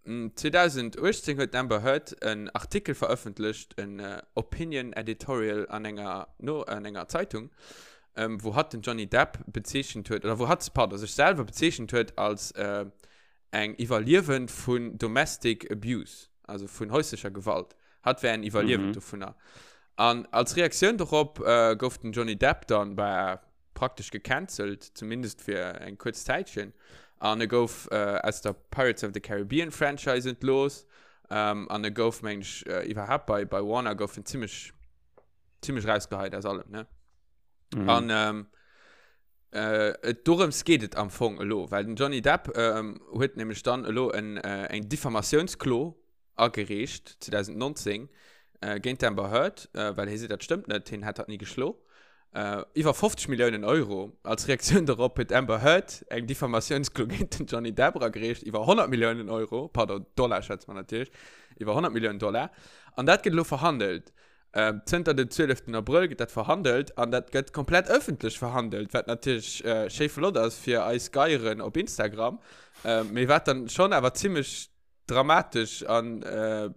2018 huet d'Amber Heard en Artikel verëffentlecht, en Opinion Editorial an enger, no, an enger Zeitung, wou hatt den Johnny Depp bezeechent huet, oder wou hatt, pardon, sech selwer bezeechent huet als eng Iwwerliewend vun Domestic Abuse, also vun häuslecher Gewalt. Hatt wär en Iwwerliewend dovunner. An als Reaktioun dorop gouf den Johnny Depp dann, bah, praktesch gecancelt, zumindest fir eng kuerz Zäitchen. An e gouf aus der Pirates of the Caribbean Franchise entlooss. An e gouf, meng ech, iwwerhaapt bei, bei Warner gouf en zimmlech, zimmlech rausgeheit aus allem, ne? Mhm. An ähm, äh, et, dorëms geet et am Fong elo, well den Johnny Depp ähm, huet nämlech dann elo en, äh, eng Diffamatiounsklo agereecht 2019 géint d'Amber Heard, well hie seet, dat stëmmt net, hien hätt hatt ni geschlo. Iwwer 50 Milliounen Euro. Als Reaktioun dorop huet d'Amber Heard eng Diffamatiounsklo géint den Johnny Depp eragereecht iwwer 100 Milliounen Euro, pardon, Dollar schwätze mer natierlech, iwwer 100 Milliounen Dollar. An dat gëtt elo verhandelt. Zënter dem 12 Abrëll gëtt dat verhandelt an dat gëtt komplett ëffentlech verhandelt, wat natierlech schéi flott ass fir eis Geieren op Instagram, mee wat dann schonn awer zimmlech dramatesch an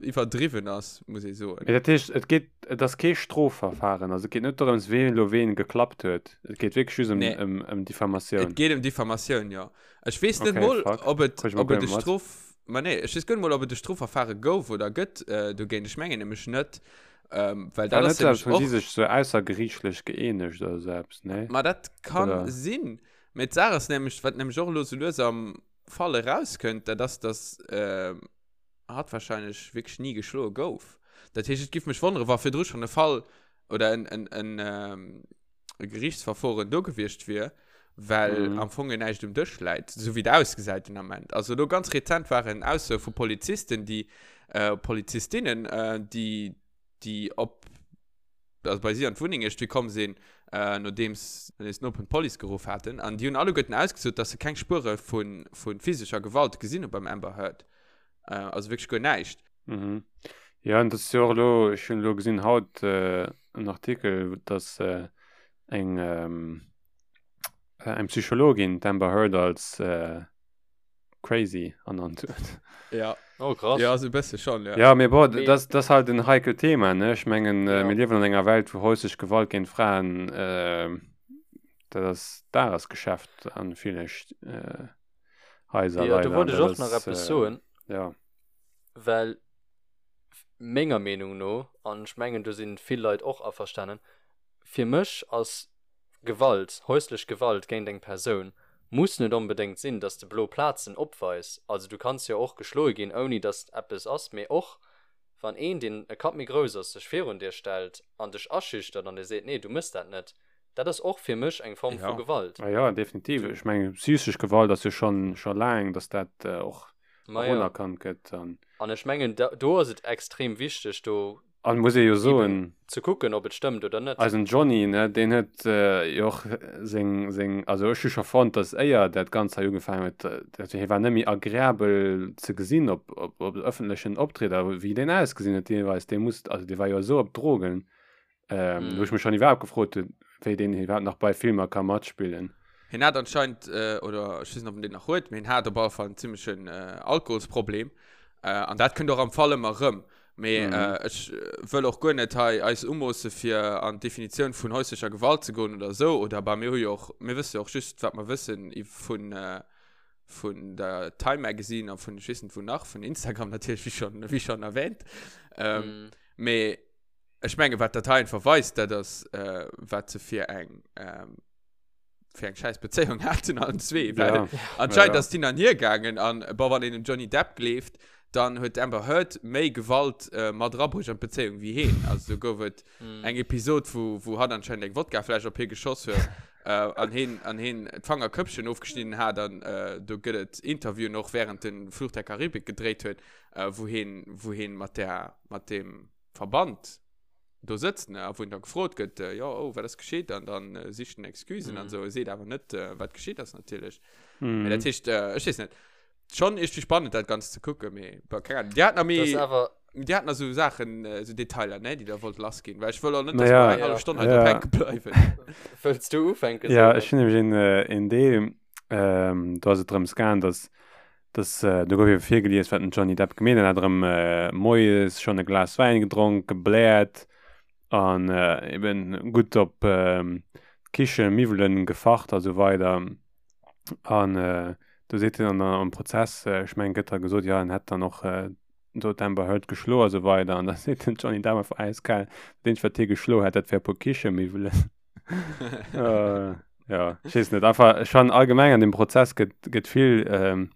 iwwerdriwwen ass, muss ee soen. Mee dat heescht, et geet, et ass kee Strofverfahren, also et geet net dorëms, ween elo ween geklappt huet, et geet wierklech just ëm, Nee. ëm, ëm Diffamatioun. Et geet ëm Diffamatioun, jo. Ech weess net Okay, mol, fuck. ob et, Kritt ech mol ob et guer e net mat. Strof, ma nee, ech weess guer net mol, ob et e Strofverfahre gouf oder gëtt dogéint. Ech mengen nämlech net, well War dat net ass esou eppes, nämlech wou si och. sech sou aussergeriichtlech gëeenegt oder esou eppes, nee? Ma dat kann Oder? sinn. Mee d'Saach ass nämlech, wat nämlech och elo sou lues am Fall erauskënnt, dat ass, dass hatt wahrscheinlech wierklech ni geschloe gouf. Dat heescht, et giff mech wonneren, wa virdru schonn e Fall oder en, en, en, e Gerichtsverforen do gewiescht wier, well Mhm. am Fong jo näischt um Dësch läit, esou wéi et ausgesäit den Ament. Also elo ganz rezent waren Aussoe vu Polizisten, déi, Polizistinnen, déi, déi op also bei si an d'Wunneng iergendwéi komm sinn, äh, nodeems nodeems d'Nopen d'Police geruff haten. An déi hunn alleguerten ausgesot, dass se keng Spuere vu vu physescher Gewalt gesinn hu beim Amber Heard. Äh, also wierklech guer näischt. Mhm. Jo, an dat ass jo och elo, ech hunn elo gesinn haut äh, en Artikel, dass äh, eng ähm, eng Psychologin d'Amber Heard als äh, crazy ernannt huet. Ja. Oh, krass. Ja, so e bësse schon, ja. Ja, mee bon, Mee- das, das halt en heikelt Thema, ne? Ech mengen, äh, Ja. mir liewen an enger Welt, wou häuslech Gewalt géint Fraen, äh, dat ass Dagesgeschäft an ville äh, Haiser Ja, do leider. wollt An ech dat och nach ass, eppes äh, soen, ja. well menger Meenung no, an ech mengen, do sinn vill Leit och averstanen, fir mech ass Gewalt, häuslech Gewalt géint eng Persoun muss net onbedéngt sinn, dass de blo Plazen opweis. Also du kanns jo och geschloe ginn, ouni dass eppes ass. Mee och wann een, deen e Kapp méi grouss ass, sech virun dir stellt an dech aschüchtert an dir seet, nee, du mëss dat net, dat ass och fir mech eng Form vu Ja. Gewalt. Ah ja, definitiv. Du. Ech mengen, psychesch Gewalt ass jo schonn scho laang, dass dat och Ma och ja. unerkannt gëtt. An An ech mengen, do ass et extrem wichteg, do An muss ee jo eben soen, ze kucken, ob et stëmmt oder net. eisen Johnny, ne, deen huet jo och seng, seng, also ech hu scho fonnt, dass éier dat Ganzt hei ugefaangen huet, dat hie war net méi agreabel ze gesinn op, op, op ëffentlechen Optrieder, wéi deen ausgesinn huet deelweis, dee muss, also dee war jo esou op Drogen, wou ech mech schonn iwwerhaapt gefrot hunn, wéi deen iwwerhaapt nach bei Filmer ka matspillen. Hien hat anscheinend, oder ech weess net, ob en deen nach huet, mee hien hat op alle Fall en zimmlechen Alkoholsproblem. An dat kënnt och am Fall ëmmer erëm. Mee mm. äh, ech äh, wëll och guer net hei eis umoosse fir an d'Definitioun vun häuslecher Gewalt ze goen oder sou. Oder bei mir hu jo och, mir wësse jo och just, wat mer wëssen vun äh, vun der Time Magazine a vun ech weess net wou nach, vun Instagram natierlech, wéi schon, wéi schon erwähnt. Ähm, mm. Mee ech menge wat dat hei einfach weist, dat ass äh, wat se fir eng ähm, fir eng scheiß Bezéiung haten allen zwee. Well ja. anscheinend ja. ass d'hin an hier gaangen an bon, wann een dem Johnny Depp gleeft, dann huet d'Amber Heard méi Gewalt äh, mat erabruecht an d'Bezéiung wéi heen. Also do gouf et mm. eng Episod, wou, wou hatt anscheinend eng Wodkafläsch op hie geschoss huet äh, an heen, an heen d'Fangerköppchen ofgeschnidden hat an äh, do gëtt et Interviewen och während den Fluch der Karibik gedréit huet, äh, wou heen, wou heen mat der, mat dem Verband do sëtzt, ne, a wou en da gefrot gëtt, äh, jo, oh, wat ass geschitt? An dann äh, sicht en Excusen mm. an mhm. so, seet awer net, äh, wat geschitt ass natierlech. Mm. Dat heescht, äh, ech weess net. Schon iergendwéi spannend dat Ganzt ze kucken, mee bon, keng Ahnung. Dir hat nach méi, dir hat nach sou Saachen, sou Detailer, ne, déi der wollt lass ginn, well ech wëll och net, dass mer eng hallef Stonn hei drop hänke bleiwen. Wëlls du ufänken, Ja, ech hunn nämlech een, een Deel, do ass et drëms gaang, dass, dass, do gouf ebe virgelies, wat den Johnny Depp gemeet huet. En hat erëm moies schonn e Glas Wäin gedronk, gebläert an eben gutt op d'Kichemiwwelen gefacht a sou weider. An äh, do seet hien an am Prozess, äh, ech mengen, gëtt da gesot, ja, en hätt dann och äh, do d'Amber Heard geschloe a sou weider. An da seet den Johnny Depp einfach äiskal, dat eenzegt, wat hie geschloe hätt, dat wär e puer Kichemiwwelen. äh, ja, ech weess net, einfach, ech fannen allgemeng an dem Prozess gëtt, gëtt vill, ähm,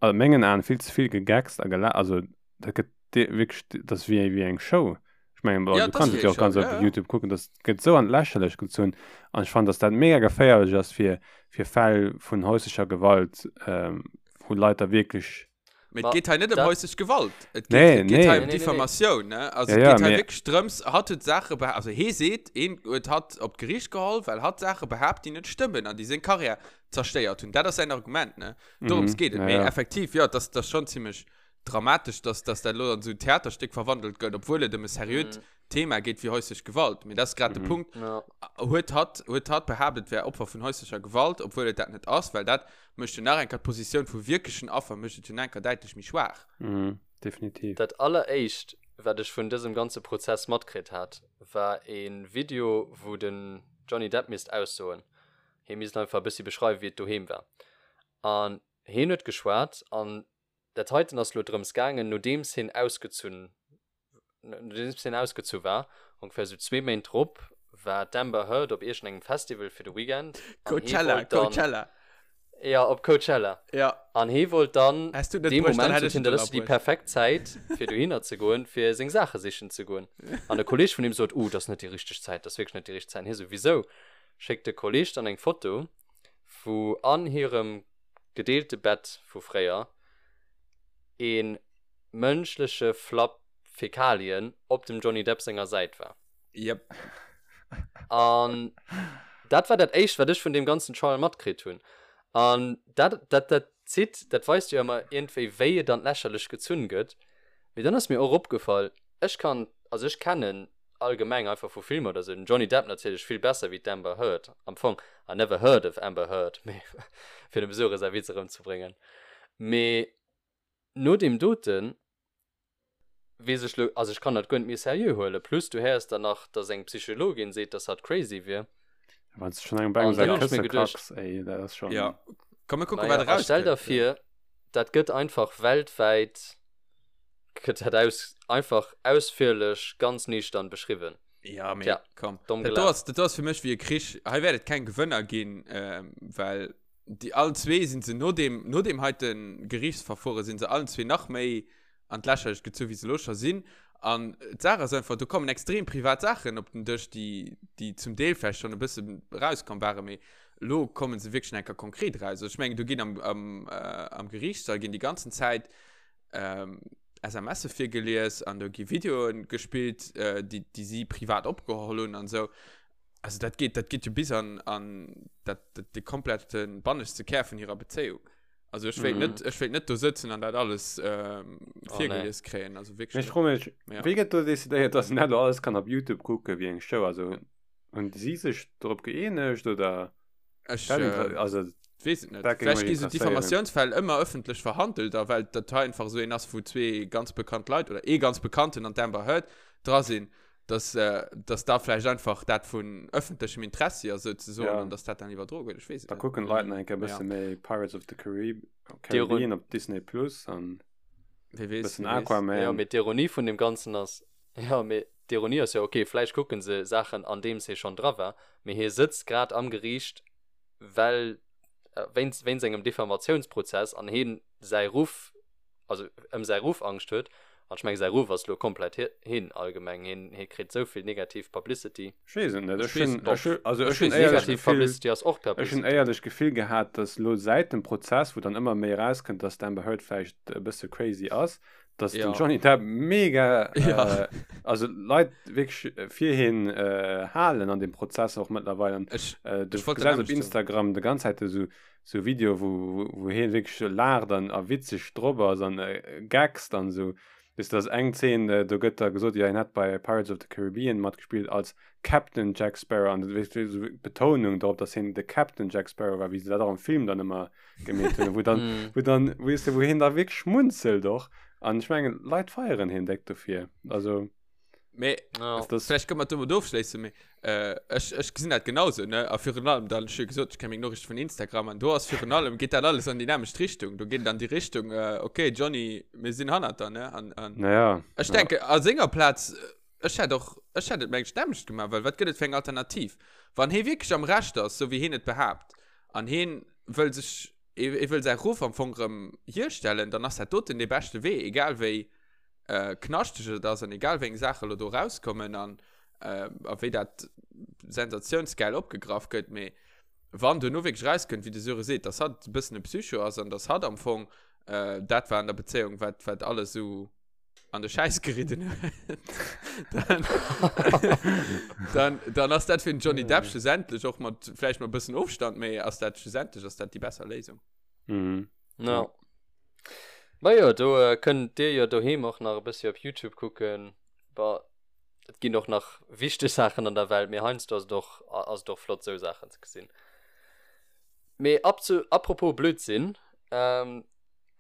a mengen Aen vill ze vill gegeckst a gela, also dat gëtt wierklech, dat ass wéi, wéi eng Show. Ech mengen, ja, du kanns et jo och ganz op ja, ja. YouTube kucken, dat gëtt sou an d'Lächerlecht gezunn. An ech fannen, dass dat mega geféierlech ass fir, fir Fäll vun häuslecher Gewalt, ähm, wou Leit da wierklech. Mee et geet hei net ëm häuslech Gewalt. Et geet, nee, et geet nee. hei ëm Diffamatioun, ne? Also ja, et geet hei wierklech drëms, hatt huet Saache behaapt, also hee seet, een huet hatt op d'Geriicht geholl, well hatt Saache behaapt, déi net stëmmen an déi seng Karriär zerstéiert hunn. Dat ass säin Argument, ne? Dorëms mhm, geet et. Ja, Mee effektiv, jo, dat ass schonn zimmlech dramatesch, dass, dass dat elo an esou en Theaterstéck verwandelt gëtt, obwuel et ëm e seriöt mm. Thema geet wéi häuslech Gewalt. Mee dat ass grad mm. de Punkt. Ja. Huet hatt, huet hatt behaapt, et wär Opfer vun häuslecher Gewalt, obwuel et dat net ass, well dat mécht jo nach eng Kéier d'Positioun vu wierklechen Affer mécht et jo nach eng Kéier däitlech méi schwaach. Mm, definitiv. Dat alleréischt, wat ech vun dësem ganze Prozess matkritt hat, war e Video, wou den Johnny Depp misst aussoen. Hie misst einfach e bëssi beschreiwen, wéi et doheem war. An hien huet geschwat an Dat heiten ass lo drëms gaangen, nodeems hien ausgezunn, nodeems hien ausgezu war, ongeféier sou zwee Méint drop, war d'Amber Heard op iergendengem Festival fir de Weekend. An hie Coachella, wollt dann, Coachella. Ja, op Coachella. Ja. An hie wollt dann, Häss du et net dee bruecht, dann Moment hätt sot ech hien, et dat ass jo déi ënnerbruecht. perfekt Zäit, fir dohinner ze goen, fir seng Saache sichen ze goen. An e Kolleeg vun him sot, Uh, dat ass net déi richteg Zäit, dat ass wierklech net déi richteg Zäit. An hie sou, Wisou? Schéckt de Kolleeg dann eng Foto, wou an hirem gedeelte Bett vu fréier ee mënschleche Flapp Fäkalien op dem Johnny Depp senger Säit war. Yep. An dat war dat éischt, wat ech vun deem ganzen Trial matkritt hunn. An dat, dat, dat zitt, dat weist jo ëmmer iergendwéi, wéi et an d'Lächerlecht gezunn gëtt. Mee dann ass mir och opgefall, ech kann, also ech kennen allgemeng einfach vu Filmer oder sou, den Johnny Depp natierlech vill besser wéi d'Amber Heard, am Fong, I never heard of Amber Heard, mee fir dem Sure säi Witz erëmzebréngen. Mee no deem doten weess ech lo, also ech kann dat guer net méi seriö huelen, plus du héiers dann nach, dass eng Psychologin seet, dass hatt crazy wier. Wann s du schonn engem bei engem An säi dann hunn ech Kësse mir geduecht, kacks, ey, dat ass schonn. Ja, komm mir kucken, naja, wat a stell der erauskënnt. vir, dat gëtt einfach weltwäit Gëtt dat aus, einfach ausführlech, ganz nüchtern beschriwwen. Ja, mee Tja, komm. domm Dat do gelaf. ass, dat do ass fir mech wéi e Krich. Hei wäert et keng Gewënner ginn, ähm, well déi allen zwee sinn se no deem, no deem heite Geriichtsverfuere sinn se allen zwee nach méi an d'Lächerlecht gezu wéi se elo scho sinn. An d'Saach ass einfach, do kommen extrem privat Saachen op den Dësch, déi, déi zum Deel vläicht schonn e bësse erauskomm waren, mee elo komme se wierklech nach eng Kéier konkret eraus. Also ech mengen, do ginn am, am, äh, am Geriichtssall ginn déi ganzen Zäit ähm, SMSe virgelies an do gi Videoen gespillt, äh, déi, déi si privat opgeholl hunn an esou. Also dat geet, dat geet jo bis an, an dat, dat, de komplette banneschte Kär vun hirer Bezéiung. Also ech wéilt Mhm. net, ech wéilt net do sëtzen an dat alles ähm, Oh, nee. virgelies kréien. Also Mee wierklech ech net. froe mech, Ja. wéi gëtt do decidéiert, dass een dat elo alles kann op YouTube kucke wéi eng Show? Also hunn si sech dorop gëeenegt oder? Ech, Dat äh, inter also weess et net. dat géing Vläicht mech gi sou interesséieren. Diffamatiounsfäll ëmmer ëffentlech verhandelt a well dat hei einfach esou een ass, wou zwee ganz bekannt Leit oder ee ganz bekannten an d'Amber Heard dra sinn, dass, äh, dass da vläicht einfach dat vun ëffentlechem Interessi ass souzesoen Ja. an dass dat dann iwwerdroe gëtt. Ech weess et Da net. kucken d'Leit nach eng Kéier e Ja. bësse méi Pirates of the Carib D'Iron Caribbean op Disney Plus an Wie weess, bëssen wie weess. Ja, Aquaman. mee d'Ironie vun deem Ganzen ass, ja, mee d'Ironie ass jo, okay, vläicht kucke se Saachen, andeems hie schonn dra war, mee hie sëtzt grad am Geriicht, well wéinst wéinst engem Diffamatiounsprozess an hien säi Ruff, also ëm säi Ruff Angscht huet, an ech menge säi Ruff ass lo komplett hin allgemeng, hien hie kritt esou vill negativ Publicity. Ech weess et net, Ech ech weess hunn et ech hu also Ech ech hunn weess et éierlech Negativ d'Gefill Publicity ass och ech hunn Publicity. éierlech d'Gefill gehat, datt elo säit dem Prozess, wou dann ëmmer méi erauskënnt, datt d'Amber Heard vläicht e bësse crazy ass, Dass den Johnny Depp mega, Ja. äh, also Leit wierklech fir hien äh, halen an dem Prozess och mëttlerweil. An, Ech, äh, du ech wollt gesäis op dat nämlech soen. Instagram de ganz Zäit esou sou Video, wou, wou, wou hien wierklech laacht an a witzeg drop ass an äh, gaggst an esou. Weess du, dass eng Zeen, äh, do gëtt da gesot, jo hien hätt bei Pirates of the Caribbean matgespillt als Captain Jack Sparrow an weess du, esou Betounung drop, dass hien de Captain Jack Sparrow war, wéi se dat och am Film dann ëmmer gemeet hunn, wou dann, Mm. wou dann, weess du, wou hien da wierklech schmunzelt och. An ech mengen, Leit feieren hien déck dofir. Also, Mee Ja. das, Vielleicht können wir domat ofschléissen, mee äh, ech, ech gesinn dat genauso, ne? A virun allem, dann, ech hu jo gesot, ech kenne meng Noriichte vun Instagram an do ass virun allem, geet dat alles an déi nämmlecht Richtung. Do geet et an déi Richtung, äh, okay, Johnny, mir sinn hannert der, ne? An, an naja, ech ja. denke, a senger Plaz, ech hätt och, ech hätt et mengen ech d'nämmlecht gemaach, well wat gëtt et fir eng Alternativ? Wann hee wierklech am Recht ass, sou wéi heen et behaapt, an heen wëll sech, hee wëll säi Ruff am Fong erëm hierstellen, dann ass dat doten dee beschte Wee, egal wéi äh, knaschteg et ass an egal wéi eng Saache lo do rauskommen an äh, a wéi dat sensationsgeil opgegraff gëtt, mee wann duerno wierklech rauskënnt, wéi de Söre seet, dass hatt e bëssen e Psycho ass an dass hatt am Fong äh, dat war an der Bezéiung, wat, wat alles sou an de Schäiss geridden huet, dann, dann, dann ass dat fir den Johnny Depp schlussendlech och mat vläicht mat e bëssen Ofstand, mee ass dat schlussendlech ass dat déi besser Léisung. Mhm. Ja. Ma jo, do äh, kënnt dir jo doheem och nach e bëssi op YouTube kucken. Bah, et ginn och nach wichteg Saachen an der Welt, mee heiansdo ass et och, ass et och flott sou Saachen ze gesinn. Mee ab zu, apropos Blödsinn, ähm,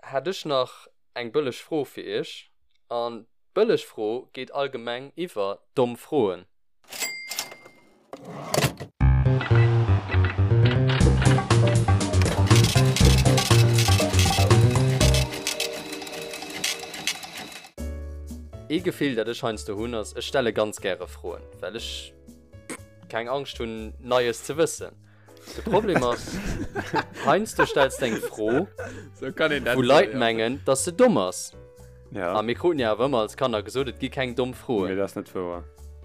hätt ech nach eng bëlleg Fro fir iech. An d'bëlleg Fro geet allgemeng iwwer domm Froen. Ee Gefill dat ech heiansdo hunn ass, ech stelle ganz gäre Froen, well ech keng Angscht hunn Neies ze wëssen. De Problem ass, heiansdo stells de eng Fro, So kann een dat wou soen, Leit ja. mengen, dass se domm ass. Ja. A mir kruten jo awer ëmmer als Kanner gesot, et gi keng domm Mee Froen. dat ass net wouer.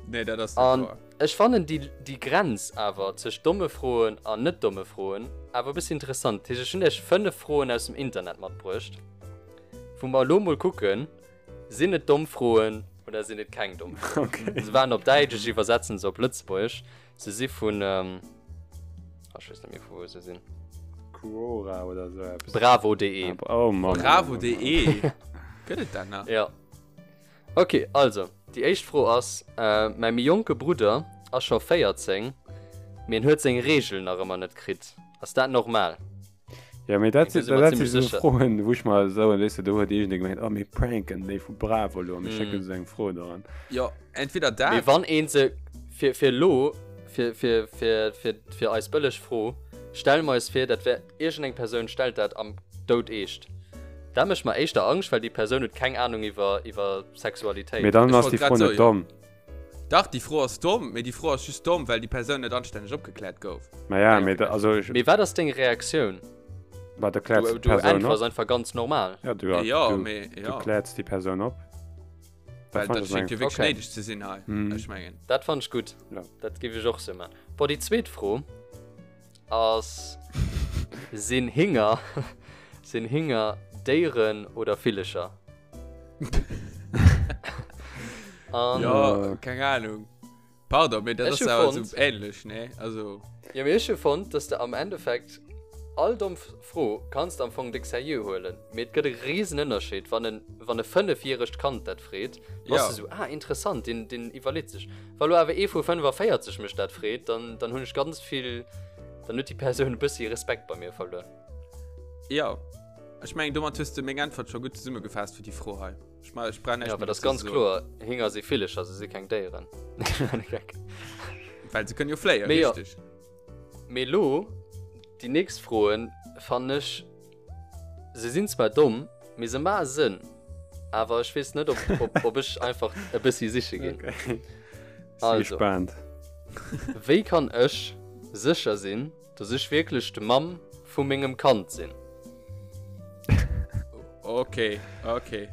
Nee, dat ass net An wouer. ech fannen déi, déi Grenz awer tëscht domme Froen an net domme Froen awer e bëssi interessant. Dat heescht, ech hunn iech 5 Froen aus dem Internet matbruecht, wou mer elo mol kucken, Sinn et domm Froen oder sinn et keng domm Froen? Okay. Se waren op Däitsch, ech iwwersetzen se op Lëtzebuergesch. Se si vun, ähm, ah, ech weess net méi vu wou se sinn. Quora oder sou eppes. Bravo.de. Ah, oh Mann. Bravo.de. Gëtt et dat nach? Ja. Okay, also, déi éischt Fro ass, äh, mäi méi jonke Brudder ass scho 14, mee en huet seng Reegel nach ëmmer net kritt. Ass dat normal? Ja, mee dat Do si si mer dat si zimmlech sou sécher. Froen, wou ech mer soen, weess de, do huet iergendee gemengt, oh mir pranken déi vu Bravo elo a mir schécken Mm. se eng Fro doran. Jo, entweder Mee dat. wann een se fir, fir elo, fir, fir, fir, fir, fir eis bëlleg Fro, stelle mer eis vir, dat wär iergendeng Persoun stellt dat am Doud eescht. Dat mécht mer éischter Angscht, well déi Persoun huet keng Anung iwwer, iwwer Sexualitéit. Mee dann Ech ass wollt déi grad Fro net soen. domm. Dach, déi Fro ass domm, mee déi Fro ass just domm, well déi Persoun net anstänneg opgekläert gouf. Ma ja, mee da, also ech. Mee wat ass deng Reaktioun? Ma da kläerts Du, d'Persoun du äntwers op. einfach ganz normal. Ja, du, Ja, du, mee, du ja. kläerts déi Persoun op. Well Dat fand dat ech schéngt eng. jo wierklech Okay. néideg ze sinn hei. Mhm. Ech mengen. Dat fand ech gutt. Ja. Dat géif ech och sou man. Bon, déi zweet Fro ass, Sinn Hinger, sinn Hinger Déieren oder Villecher? An Ja, keng Ahnung. Pardon, mee dat Ech ass hu awer fonnt- sou ähnlech, ne? Also, Ja, mee ech hu fonnt, dass de am Endeffekt all domm Fro kanns de am Fong déck seriö huelen, mee et gëtt e risen Ënnerscheed, wann en, wann e fënnefjäregt Kand dat freet, da bass Ja. de sou, ah, interessant, deen, deen iwwerleet sech. Wa lo awer ee vu 45 mech dat freet, dann, dann hunn ech ganz vill, dann huet déi Persoun e bëssi Respekt bei mir verluer. ja. Ech mengen, domat hues de meng Äntwert scho gutt zesummegefaasst fir déi Fro hei. Ech ma, ech brauch näischt Ja, méi well dat ass dozou ganz ze soen. kloer, Hinger si Villecher, se si keng Déieren. Well se kënnen jo fléien, Mee jo. richteg. Mee lo, déi nächst Froen fannen ech, se sinn zwar domm, mee se maache Sënn. Awer ech weess net, ob, ob, ob ech einfach e bëssi siche ginn. Okay. Si Also. gespaant. Wéi kann ech sécher sinn, Dass ech wierklech de Mamm vu mengem Kand sinn. Okay, okay.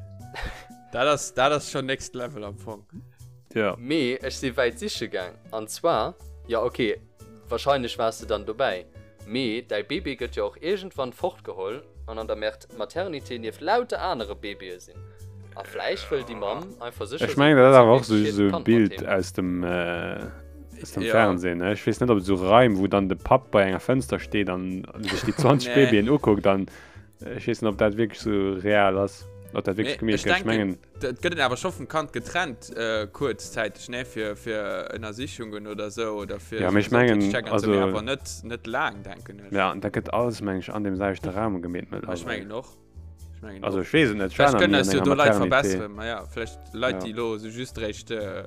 Dat ass, dat ass schon next level am Fong. Ja. Mee ech si wäit siche gaang. An zwar, jo ok, wahrscheinlech waars de dann dobäi, mee däi Bébé gëtt jo och iergendwann fortgeholl an an der Maternité nieft lauter anere Bébéë sinn. A vläicht wëll déi Mamm einfach sécher Ech mengen, dat ass awer och sou sou e Bild aus dem aus dem Fernsehen, ne? Ech weess net, ob et sou Raim, wou dann de Papp bei enger Fënster steet an sech déi 20 Babyen ukuckt an ech weess net, ob dat wierklech sou real ass, ob dat wierklech gemeet gëtt. Ech mengen. Et gëtt en awer scho vum Kand getrennt, kuerzzäiteg, ne? Fir fir Ënnersichungen oder sou oder fir. Ja, mee ech mengen, also. Mee awer net net laang, denken ech. Ja, an da gëtt alles, meng ech, an deem selwechte Raum gemeet mëttlerweil. Ech mengen och. Ich mein, also ich wees net vielleicht können es do Leit verbessern ma ja vielleicht Leit ja. die lo so just recht äh,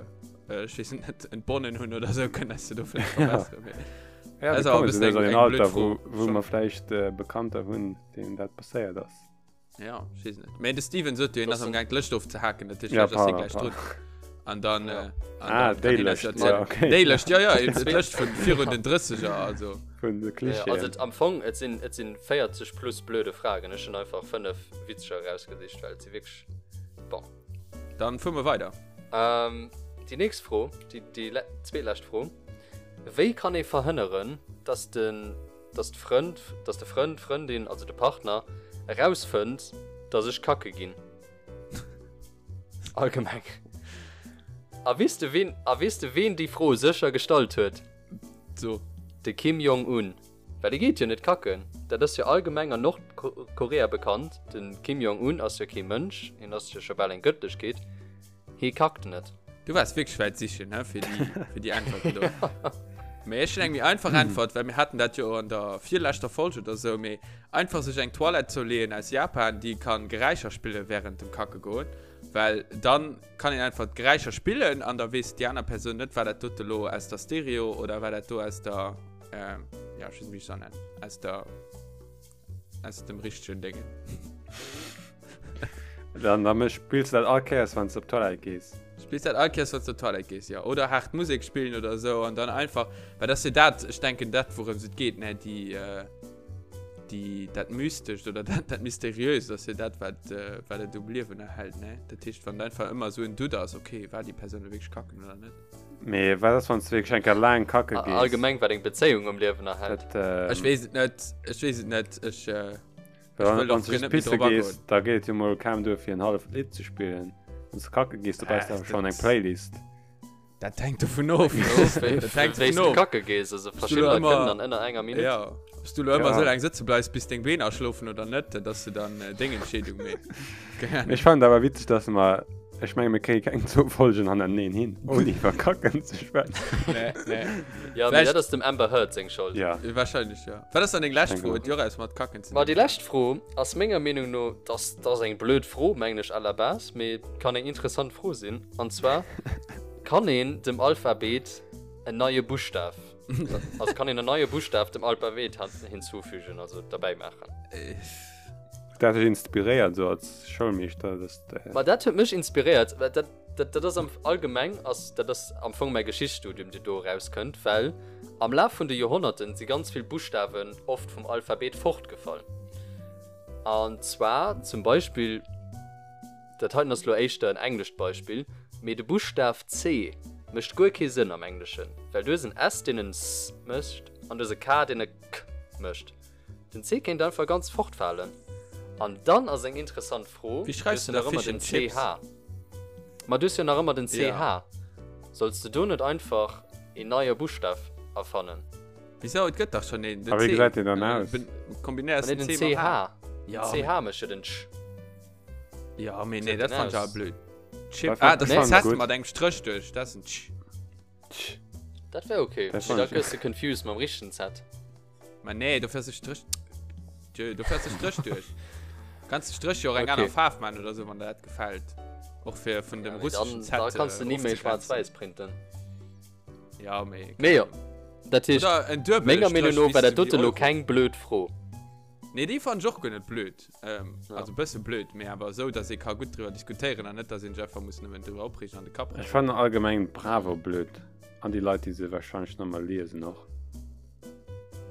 äh ich weiß net entbonnen hunn oder so können es do vielleicht verbessern ja, ja, also, eng, eng Alter wo, wo man vielleicht äh, bekannter hunn denen dat passéiert ass ja ich weiß net de Steven sot du ass am gang Lëscht ofzehaken dat ja, gleich drun an dann ja. äh, an ah, dann déi Lëscht, ja, okay. déi Lëscht ja ja Lëscht vun virun den 30er also vun de Klischeen. Also am Fong et sinn et sinn 40 plus blöde Fragen. Ech hunn einfach 5 witzeger erausgesicht, well et si wierklech bon. Dann fuere mer weider. Ähm, déi nächst Fro, déi déi zweetlescht Fro, Wéi kann ee verhënneren, dass den dass d'Frënd dass de Frënd, d'Frëndin, also de Partner erausfënnt, dass ech kacke ginn? Allgemeng. A weess de ween a weess de ween déi Fro sécher gestallt huet? So. De Kim Jong Un. Well dee geet jo net kacken. Dat ass jo allgemeng an Nordkorea bekannt, de Kim Jong Un ass jo kee Mënsch, hien ass jo scho bal eng Gëttlechkeet, hee kackt net. Du waars wierklech wäit sichen, he, fir déi, fir déi Äntwerten do. Mee ech hunn eng méi einfach Äntwert, well mir haten dat jo an der virleschter Folge oder sou, mee einfach sech eng Toilette zouleeën aus Japan, déi kann Geräischer spillen während dem Kacke goen, well dann kann een einfach d'Geräischer spillen an da weess déi aner Persoun net, war dat dote lo aus der Stereo oder war dat do aus der, äh, ja, ech weess net, wéi ech se nennen, aus der, aus dem richtegen Déngen. Dann, dann spills du dat all Kéiers, wann du op d'Toilette gees. Spills dat all Kéiers, wann du op d'Toilette gees, ja. Oder haart Musek spillen oder sou an dann einfach, well dat ass jo dat, ech denken, dat wourëms et geet, ne, déi, äh, déi, dat Mystescht oder dat, dat Mysteriöst ass jo dat, wat, äh, wat et um Liewen erhält, ne. Dat heescht, wann einfach ëmmer esou en Doute ass, okay, war déi Persoun elo wierklech kacken oder net? Mee wat ass, wann s du wierklech eng Kéier laang kacke gees? Allgemeng, wat eng Bezéiung um Liewen erhält. Dat, ähm. Ech weess et net, ech weess et net, ech, äh. Well wann s du just pisse gees, da geet et jo mol kaum duer fir en halleft Lidd ze spillen. Wann s du kacke gees, da brauchs du awer schonn eng Playlist. Dat hänkt dovun of. Dat hänkt dovun of. Kacke gees, also verschidden Leit kënnen dann ënner enger Minutt. Ja, ob s du lo ëmmer esou laang sëtze bleifs, bis deng Been aschlofen oder net, dat ass jo dann deng Entscheedung, mee keng Ahnung. Ech fannen et awer witzeg, dass mer, ech menge mir kréie keng zwou Folgen hannerteneen hin, ouni iwwer Kacken ze schwätzen. Nee, nee. Ja, mee dat ass dem Amber Heard seng Schold. Ja. Wahrscheinlech, ja. Wat ass dann deng lescht Fro? Huet jo och eppes mat Kacken ze dinn. Ma déi lescht Fro ass menger Meenung no, dass dat ass eng blöd Fro, mengen ech à la base, mee kann eng interessant Fro sinn, an zwar, Kann een dem Alphabet en neie Buschtaf, also kann een en neie Buschtaf dem Alphabet hinzufügen, also derbäi maachen? Dat huet dech inspiréiert esou als Schoulmeeschter, dass de. Ma dat huet mech inspiréiert, well dat. Dat, dat ass am allgemeng ass dat ass am Fong mäi Geschichtsstudium, dee do erauskënnt, well am Laf vun de Joerhonnerten si ganz vill Buschtawen oft vum Alphabet fortgefall. An zwar zum Beispill, dat heiten ass lo éischter en englescht Beispill, mee de Buschtaf C mécht guer kee Sënn am Engleschen, well du hues en S, deen en s mécht, an du hues e K, deen e k mécht. Den C kéint einfach ganz fortfalen. An dann ass eng interessant Fro, Wéi schreifs du du hues jo da nach ëmmer Fish den and Chips? CH. Ma du hues jo nach ëmmer den CH. Ja. Solls de do net einfach een neie Buschtaf erfannen? Wisou? Et gëtt dach schonn een, den A wéi C. gesäit deen dann aus? Kombinéiers Nee, den den C mam CH. H. Ja, Den mee. CH mécht jo den Ch. Ja, mee Wéi nee, gesäit dat den fannen ech awer aus? blöd. Chip, Dat ah, dat ass fand en ech Z gutt. mat engem Stréch duerch, dat ass en Ch. Ch. Dat wär okay. Dat Mee fand da ech. gëss de confused mam richtegen Z. Ma nee, do fährst du Strich. Tjö, do fährst du Strich durch. Kannst du Strich jo och eng Okay. aner Faarf man oder so, wann der dat gefällt. Och fir vun dem Ja, mee russischen dann, Z. da kannst du äh, ni méi ofzegrenzen. schwaarz-wäiss printen. Ja, mee. Mee jo, dat heescht, Oder en duebele menger Meenung Strich, no war wéi dat s du dote déi lo Euro. keng blöd Fro. Nee, déi fand ech och guer net blöd. Ähm, Ja. Also e bësse blöd, mee awer esou, dass ee ka gutt driwwer diskutéieren an net, dass een sech einfach muss nëmmen driwwer opreegen an de Kapp Ech rëselen. fannen allgemeng d'Bravo blöd. An déi Leit, déi se wahrscheinlech nach emol liesen och.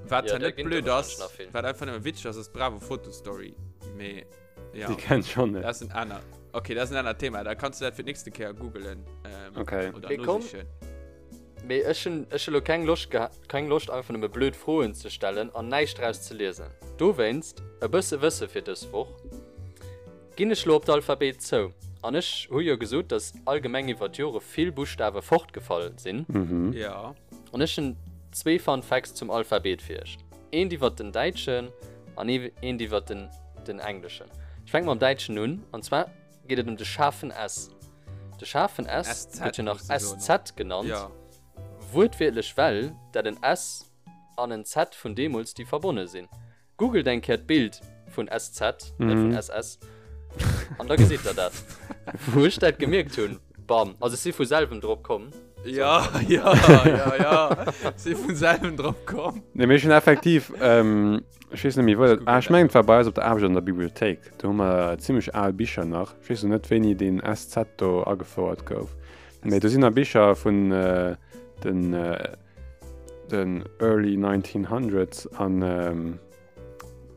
Wat Ja, ja, da net ginn blöd der ass, wahrscheinlech nach vill. wat einfach nëmme witzeg ass, ass d'Bravo Fotostory. Mee ja, Déi kennt schon net. dat ass en aner. Okay, dat ass en anert Thema. Da kanns du dat fir d'nächste Kéier googelen. Ähm, Okay. Oder Mee komm. nosichen. Mee ech hunn ech hu lo keng Loscht geha keng Loscht einfach nëmme blöd Froen ze stellen an näischt draus ze liesen. Dowéinst e bësse Wësse fir dës Woch. Ginn ech lo op d'Alphabet zou. An ech hu jo gesot, dass allgemeng iwwer d'Jore vill Buschtawe fortgefall sinn. Mhm. Ja. An ech hunn zwee Fun Facts zum Alphabet fir iech. Eent iwwer den däitschen an eent iwwer den, den engleschen. Ech fänke mam däitschen un, an zwar geet et ëm de schaarfen S. De schaarfen S gëtt jo nach SZ genannt, ja. wuertwiertlech well dat en S an en Z vun deemools, déi verbonne sinn. Googelt eng Kéier d'Bild vun SZ, net vun SS, an da gesitt der dat. Wou ech dat gemierkt hunn, bam, also ech si vu selwem drop komm. Ja, ja, ja, ja, si vun selwem drop komm. Nee, mee ech hunn effektiv, ech weess net méi wou dat, ah ech mengen et war bei eis op der Aarbecht an der Bibliothéik, do hu mer zimmlech al Bicher nach, ech weess lo net wéini deen SZ do agefouert gouf, mee do sinn nach Bicher vun den den early 1900s an ähm,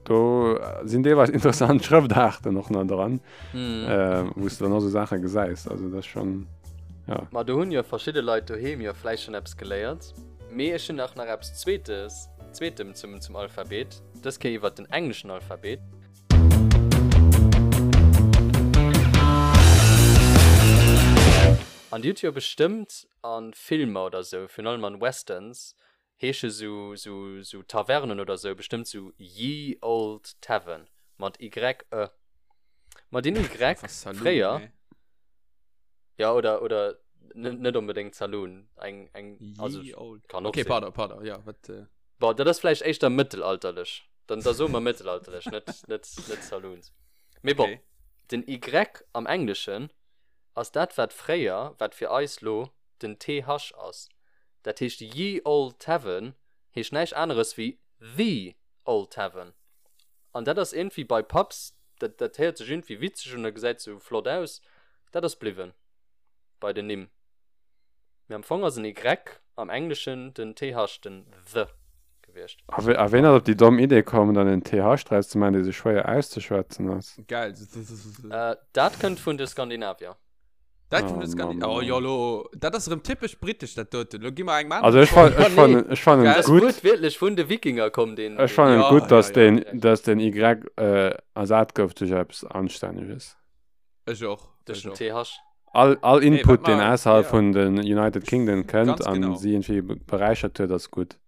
do sinn deelweis interessant Schrëftaarten och nach dran, mm. äh, wou du dann och so Saache gesäis. Also das schon ja. Ma do hunn jo verschidde Leit doheem jo vläicht schon eppes geléiert. Mee ech hunn nach nach eppes Zweetes, Zweetem zum, zum Alphabet, dës Kéier iwwer den engleschen Alphabet. An Dir hutt jo bestëmmt a Filmer oder sou, virun allem an Westerns, heesche sou sou sou Tavernen oder sou bestëmmt sou Ye Olde Tavern mat y e. Ma deen y fréier, jo oder oder net onbedéngt Saloon, eng eng also kann och sinn. Okay, pardon, pardon, jo wat. Bon, dat ass vläicht éischter mëttelalterlech, dann da soe mer mëttelalterlech, net net net Saloons. Mee bon, den y am Engleschen ass dat wat fréier, wat fir eis lo den TH ass. Dat heescht Ye Olde Tavern heescht näischt aneres wéi The Old Tavern. An dat ass iergendwéi bei Pubs, dat dat héiert sech iergendwéi witzeg un a gesäit sou flott aus, dat ass bliwwen bei den Nimm. Mee am Fong ass en Y am Engleschen den TH, den the, gewiescht. A wéi, ween ass op déi domm Idee komm, dann en TH draus ze maachen, dee sou schwéier auszeschwätzen ass? Geil. Dat kënnt vun de Skandinavier. Dat kënnt vun de Skandinavier. Oh jo, lo, dat ass erëm typesch britesch, dat doten. Lo gi mer engem aneren. Also ech fannen, ech fannen, ech fannen et gutt. Dat ass wuertwiertlech vun de Wikinger komm, deen. Ech fannen et gutt, dass deen, dass den Y ersat gouf duerch eppes Anstänneges. Ech och. Duerch den TH. All, all Input, deen ausserhalb vun den United Kingdom kënnt an si iergendwéi beräichert huet, ass gutt.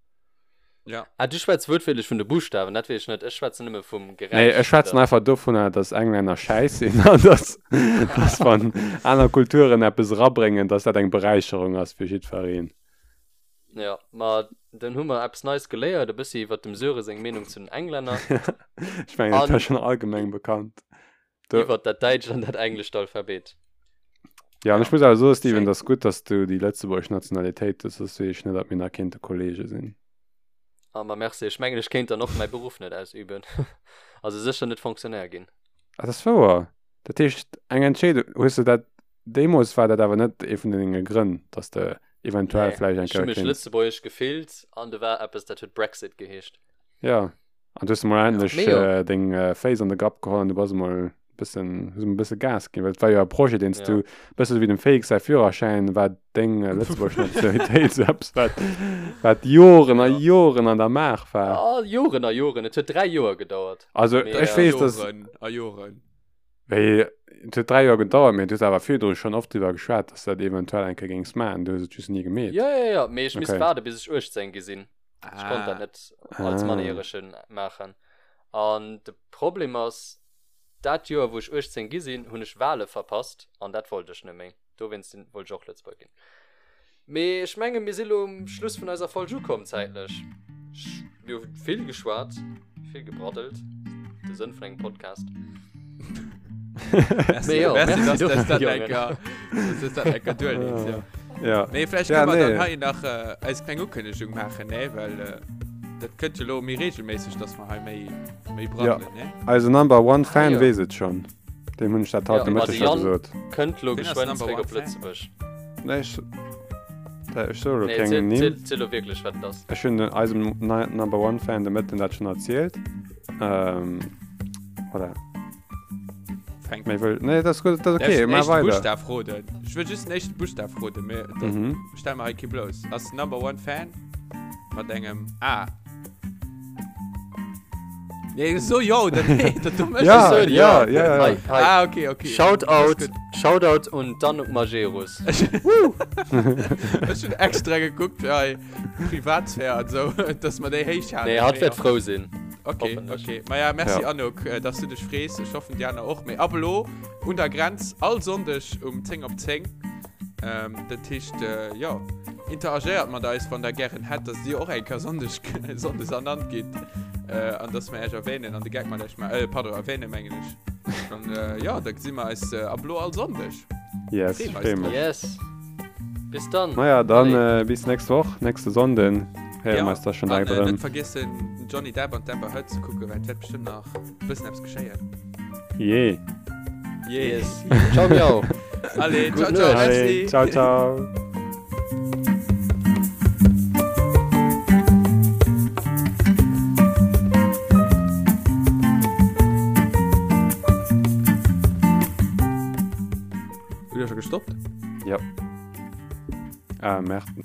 Ja. Ah, du schwätz wuertwiertlech vun de Buschtawen, dat weess ech net. Ech schwätzen nëmme vum Geräisch. Nee, ech schwätzen einfach dovunner, dass Englänner schäiss sinn an dass, dass wann aner Kulturen eppes erabréngen, dass dat eng Beräicherung ass fir jiddwereen. Ja, ma dann hu mer eppes Neies geléiert, e bëssi iwwer dem Söre seng Meenung zu den Englänner. Ech mengen, dat war schonn allgemeng bekannt. Iwwer dat däitscht an dat englescht Alphabet. Ja, an ech muss awer soen, Steven, et ass gutt, dass du déi lëtzebuergesch Nationalitéit hues, soss weess ech net, ob mir nach kéinte Kollege sinn. Ah, ma merci. Ech mengen, ech kéint dann och mäi Beruff net ausüben. Also sécher net Fonctionnaire ginn. Ah, dat ass wouer. Dat heescht, eng Entscheedung, hues de dat, deemools war dat awer net ee vun denge Grënn, dass de eventuell Nee, vläicht eng ech hu Kéier mech kéints. lëtzebuergesch gefillt an do war eppes, dat huet Brexit geheescht. Ja. An du hues emol endlech Mee jo. äh, deng äh, Féiss an de Grapp geholl an du bass emol bëssen, hues emol bësse Gas ginn, well et war jo e Projet, deen s Ja. du, bësse sou wéi dem Félix säi Führerschäin, war deng äh, lëtzebuergesch Nationalitéit sou eppes, wat, wat Joren a Ja. Joren an der Maach war. Ah, Joren a Joren. Et huet 3 Joer gedauert. Also Mee, ech äh, weess, dass, Joren a Joren. wéi, et huet 3 Joer gedauert, mee du hues awer virdru schonn oft driwwer geschwat, dass du dat eventuell eng Kéier géings maachen, du hues et just ni gemeet. Ja, ja, ja. Mee ech misst Okay. waarde bis ech 18 gi sinn. Ech konnt dat net als Ah. Mannerjäregen maachen. An de Problem ass, dat Joer, wou ech 18 gi sinn, hunn ech Wale verpasst an dat wollt ech net méi. Dowéinst sinn, wollt ech och Lëtzebuerger ginn. Mee ech menge mir si lo um Schluss vun eiser Folg ukomm zäitlech. Ech, mir hu vill geschwat, vill gebraddelt, de Sënn vun engem Podcast. Merci, Mee jo, merci, merci dass dofir, dass dat Jongen. eng Kéier, dass dass dat eng Kéier duerleet, ja. Ja. Nee, vläicht Ja, kënne mer dann nee. hei nach äh, eis kleng Ukënnegung maachen, ne? Well äh, dat kënnt jo lo méi regelméisseg, dass mer hei méi, méi braddelen, ne? Eise Number One Fan Ah, jo. weess et schonn. Deem hunn ech dat haut Ja, de ma Mëtteg de scho Yann gesot. kënnt lo Wien ass geschwënn Number zréck One op Fan? Lëtzebuerg. Nee, ech, da, ech soe lo Nee, keng ziel, Nimm. ziel, ziel lo wierklech, wat et ass. Ech hunn den, eisem Ni- Number One Fan de Mëtten dat schonn erzielt. Ähm, voilà. Fänk. Méi wëll, nee, dat ass gutt, dat ass Darf okay, ich den mar éischten weider. Buschtaf roden? Ech wëll just den éischten Buschtaf roden, mee dat Mhm. stell mer hei kee blouss. Ass Number One Fan mat engem A. Nee, so jo oder nee, dat du méchs. Ja, so, ja, ja. ja, ja. Hei, hei. Ah, okay, okay. Shoutout, Alles Shoutout un d'Anouk Majerus. gutt. Ech hunn extra gekuckt fir hei Privatsphär an sou, dass mer déi héich halen. Nee, hatt wäert frou sinn. Okay, Hoffentlech. okay. Ma ja, merci Ja. Anouk, äh, dass du dech frees. Ech hoffen, déi aner och. Mee ab elo un der Grenz all Sonndeg um 10 op 10. Ähm, dat heescht, äh, jo, interagéiert mat eis, wann der gären hätt, dass dir och eng Kéier Sonndeg, Sonndes ernannt gitt. Äh, an dass mer iech erwähnen an de Gag mat iech ma äh, pardon, erwähnen, mengen ech. An äh, ja, da gesi mer eis äh, ab elo all Sonndeg. Yes, Freeë mer eis freeë mech. Yes. Bis dann. Naja, dann Allez. äh, bis nächst Woch, nächste Sonnden. Héiere mer eis da schon an, direkt äh, erëm. net vergiessen, den Johnny Depp an d'Amber Heard ze kucken, well et wäert bestimmt nach e bëssen eppes geschéien. Jee. Yeah. Yes. Ciao, miau. Allez, Gutt ciao, ciao, Nuecht. merci. Allez, ciao, ciao. Hutt Dir scho gestoppt? Ja. Ah, Merde.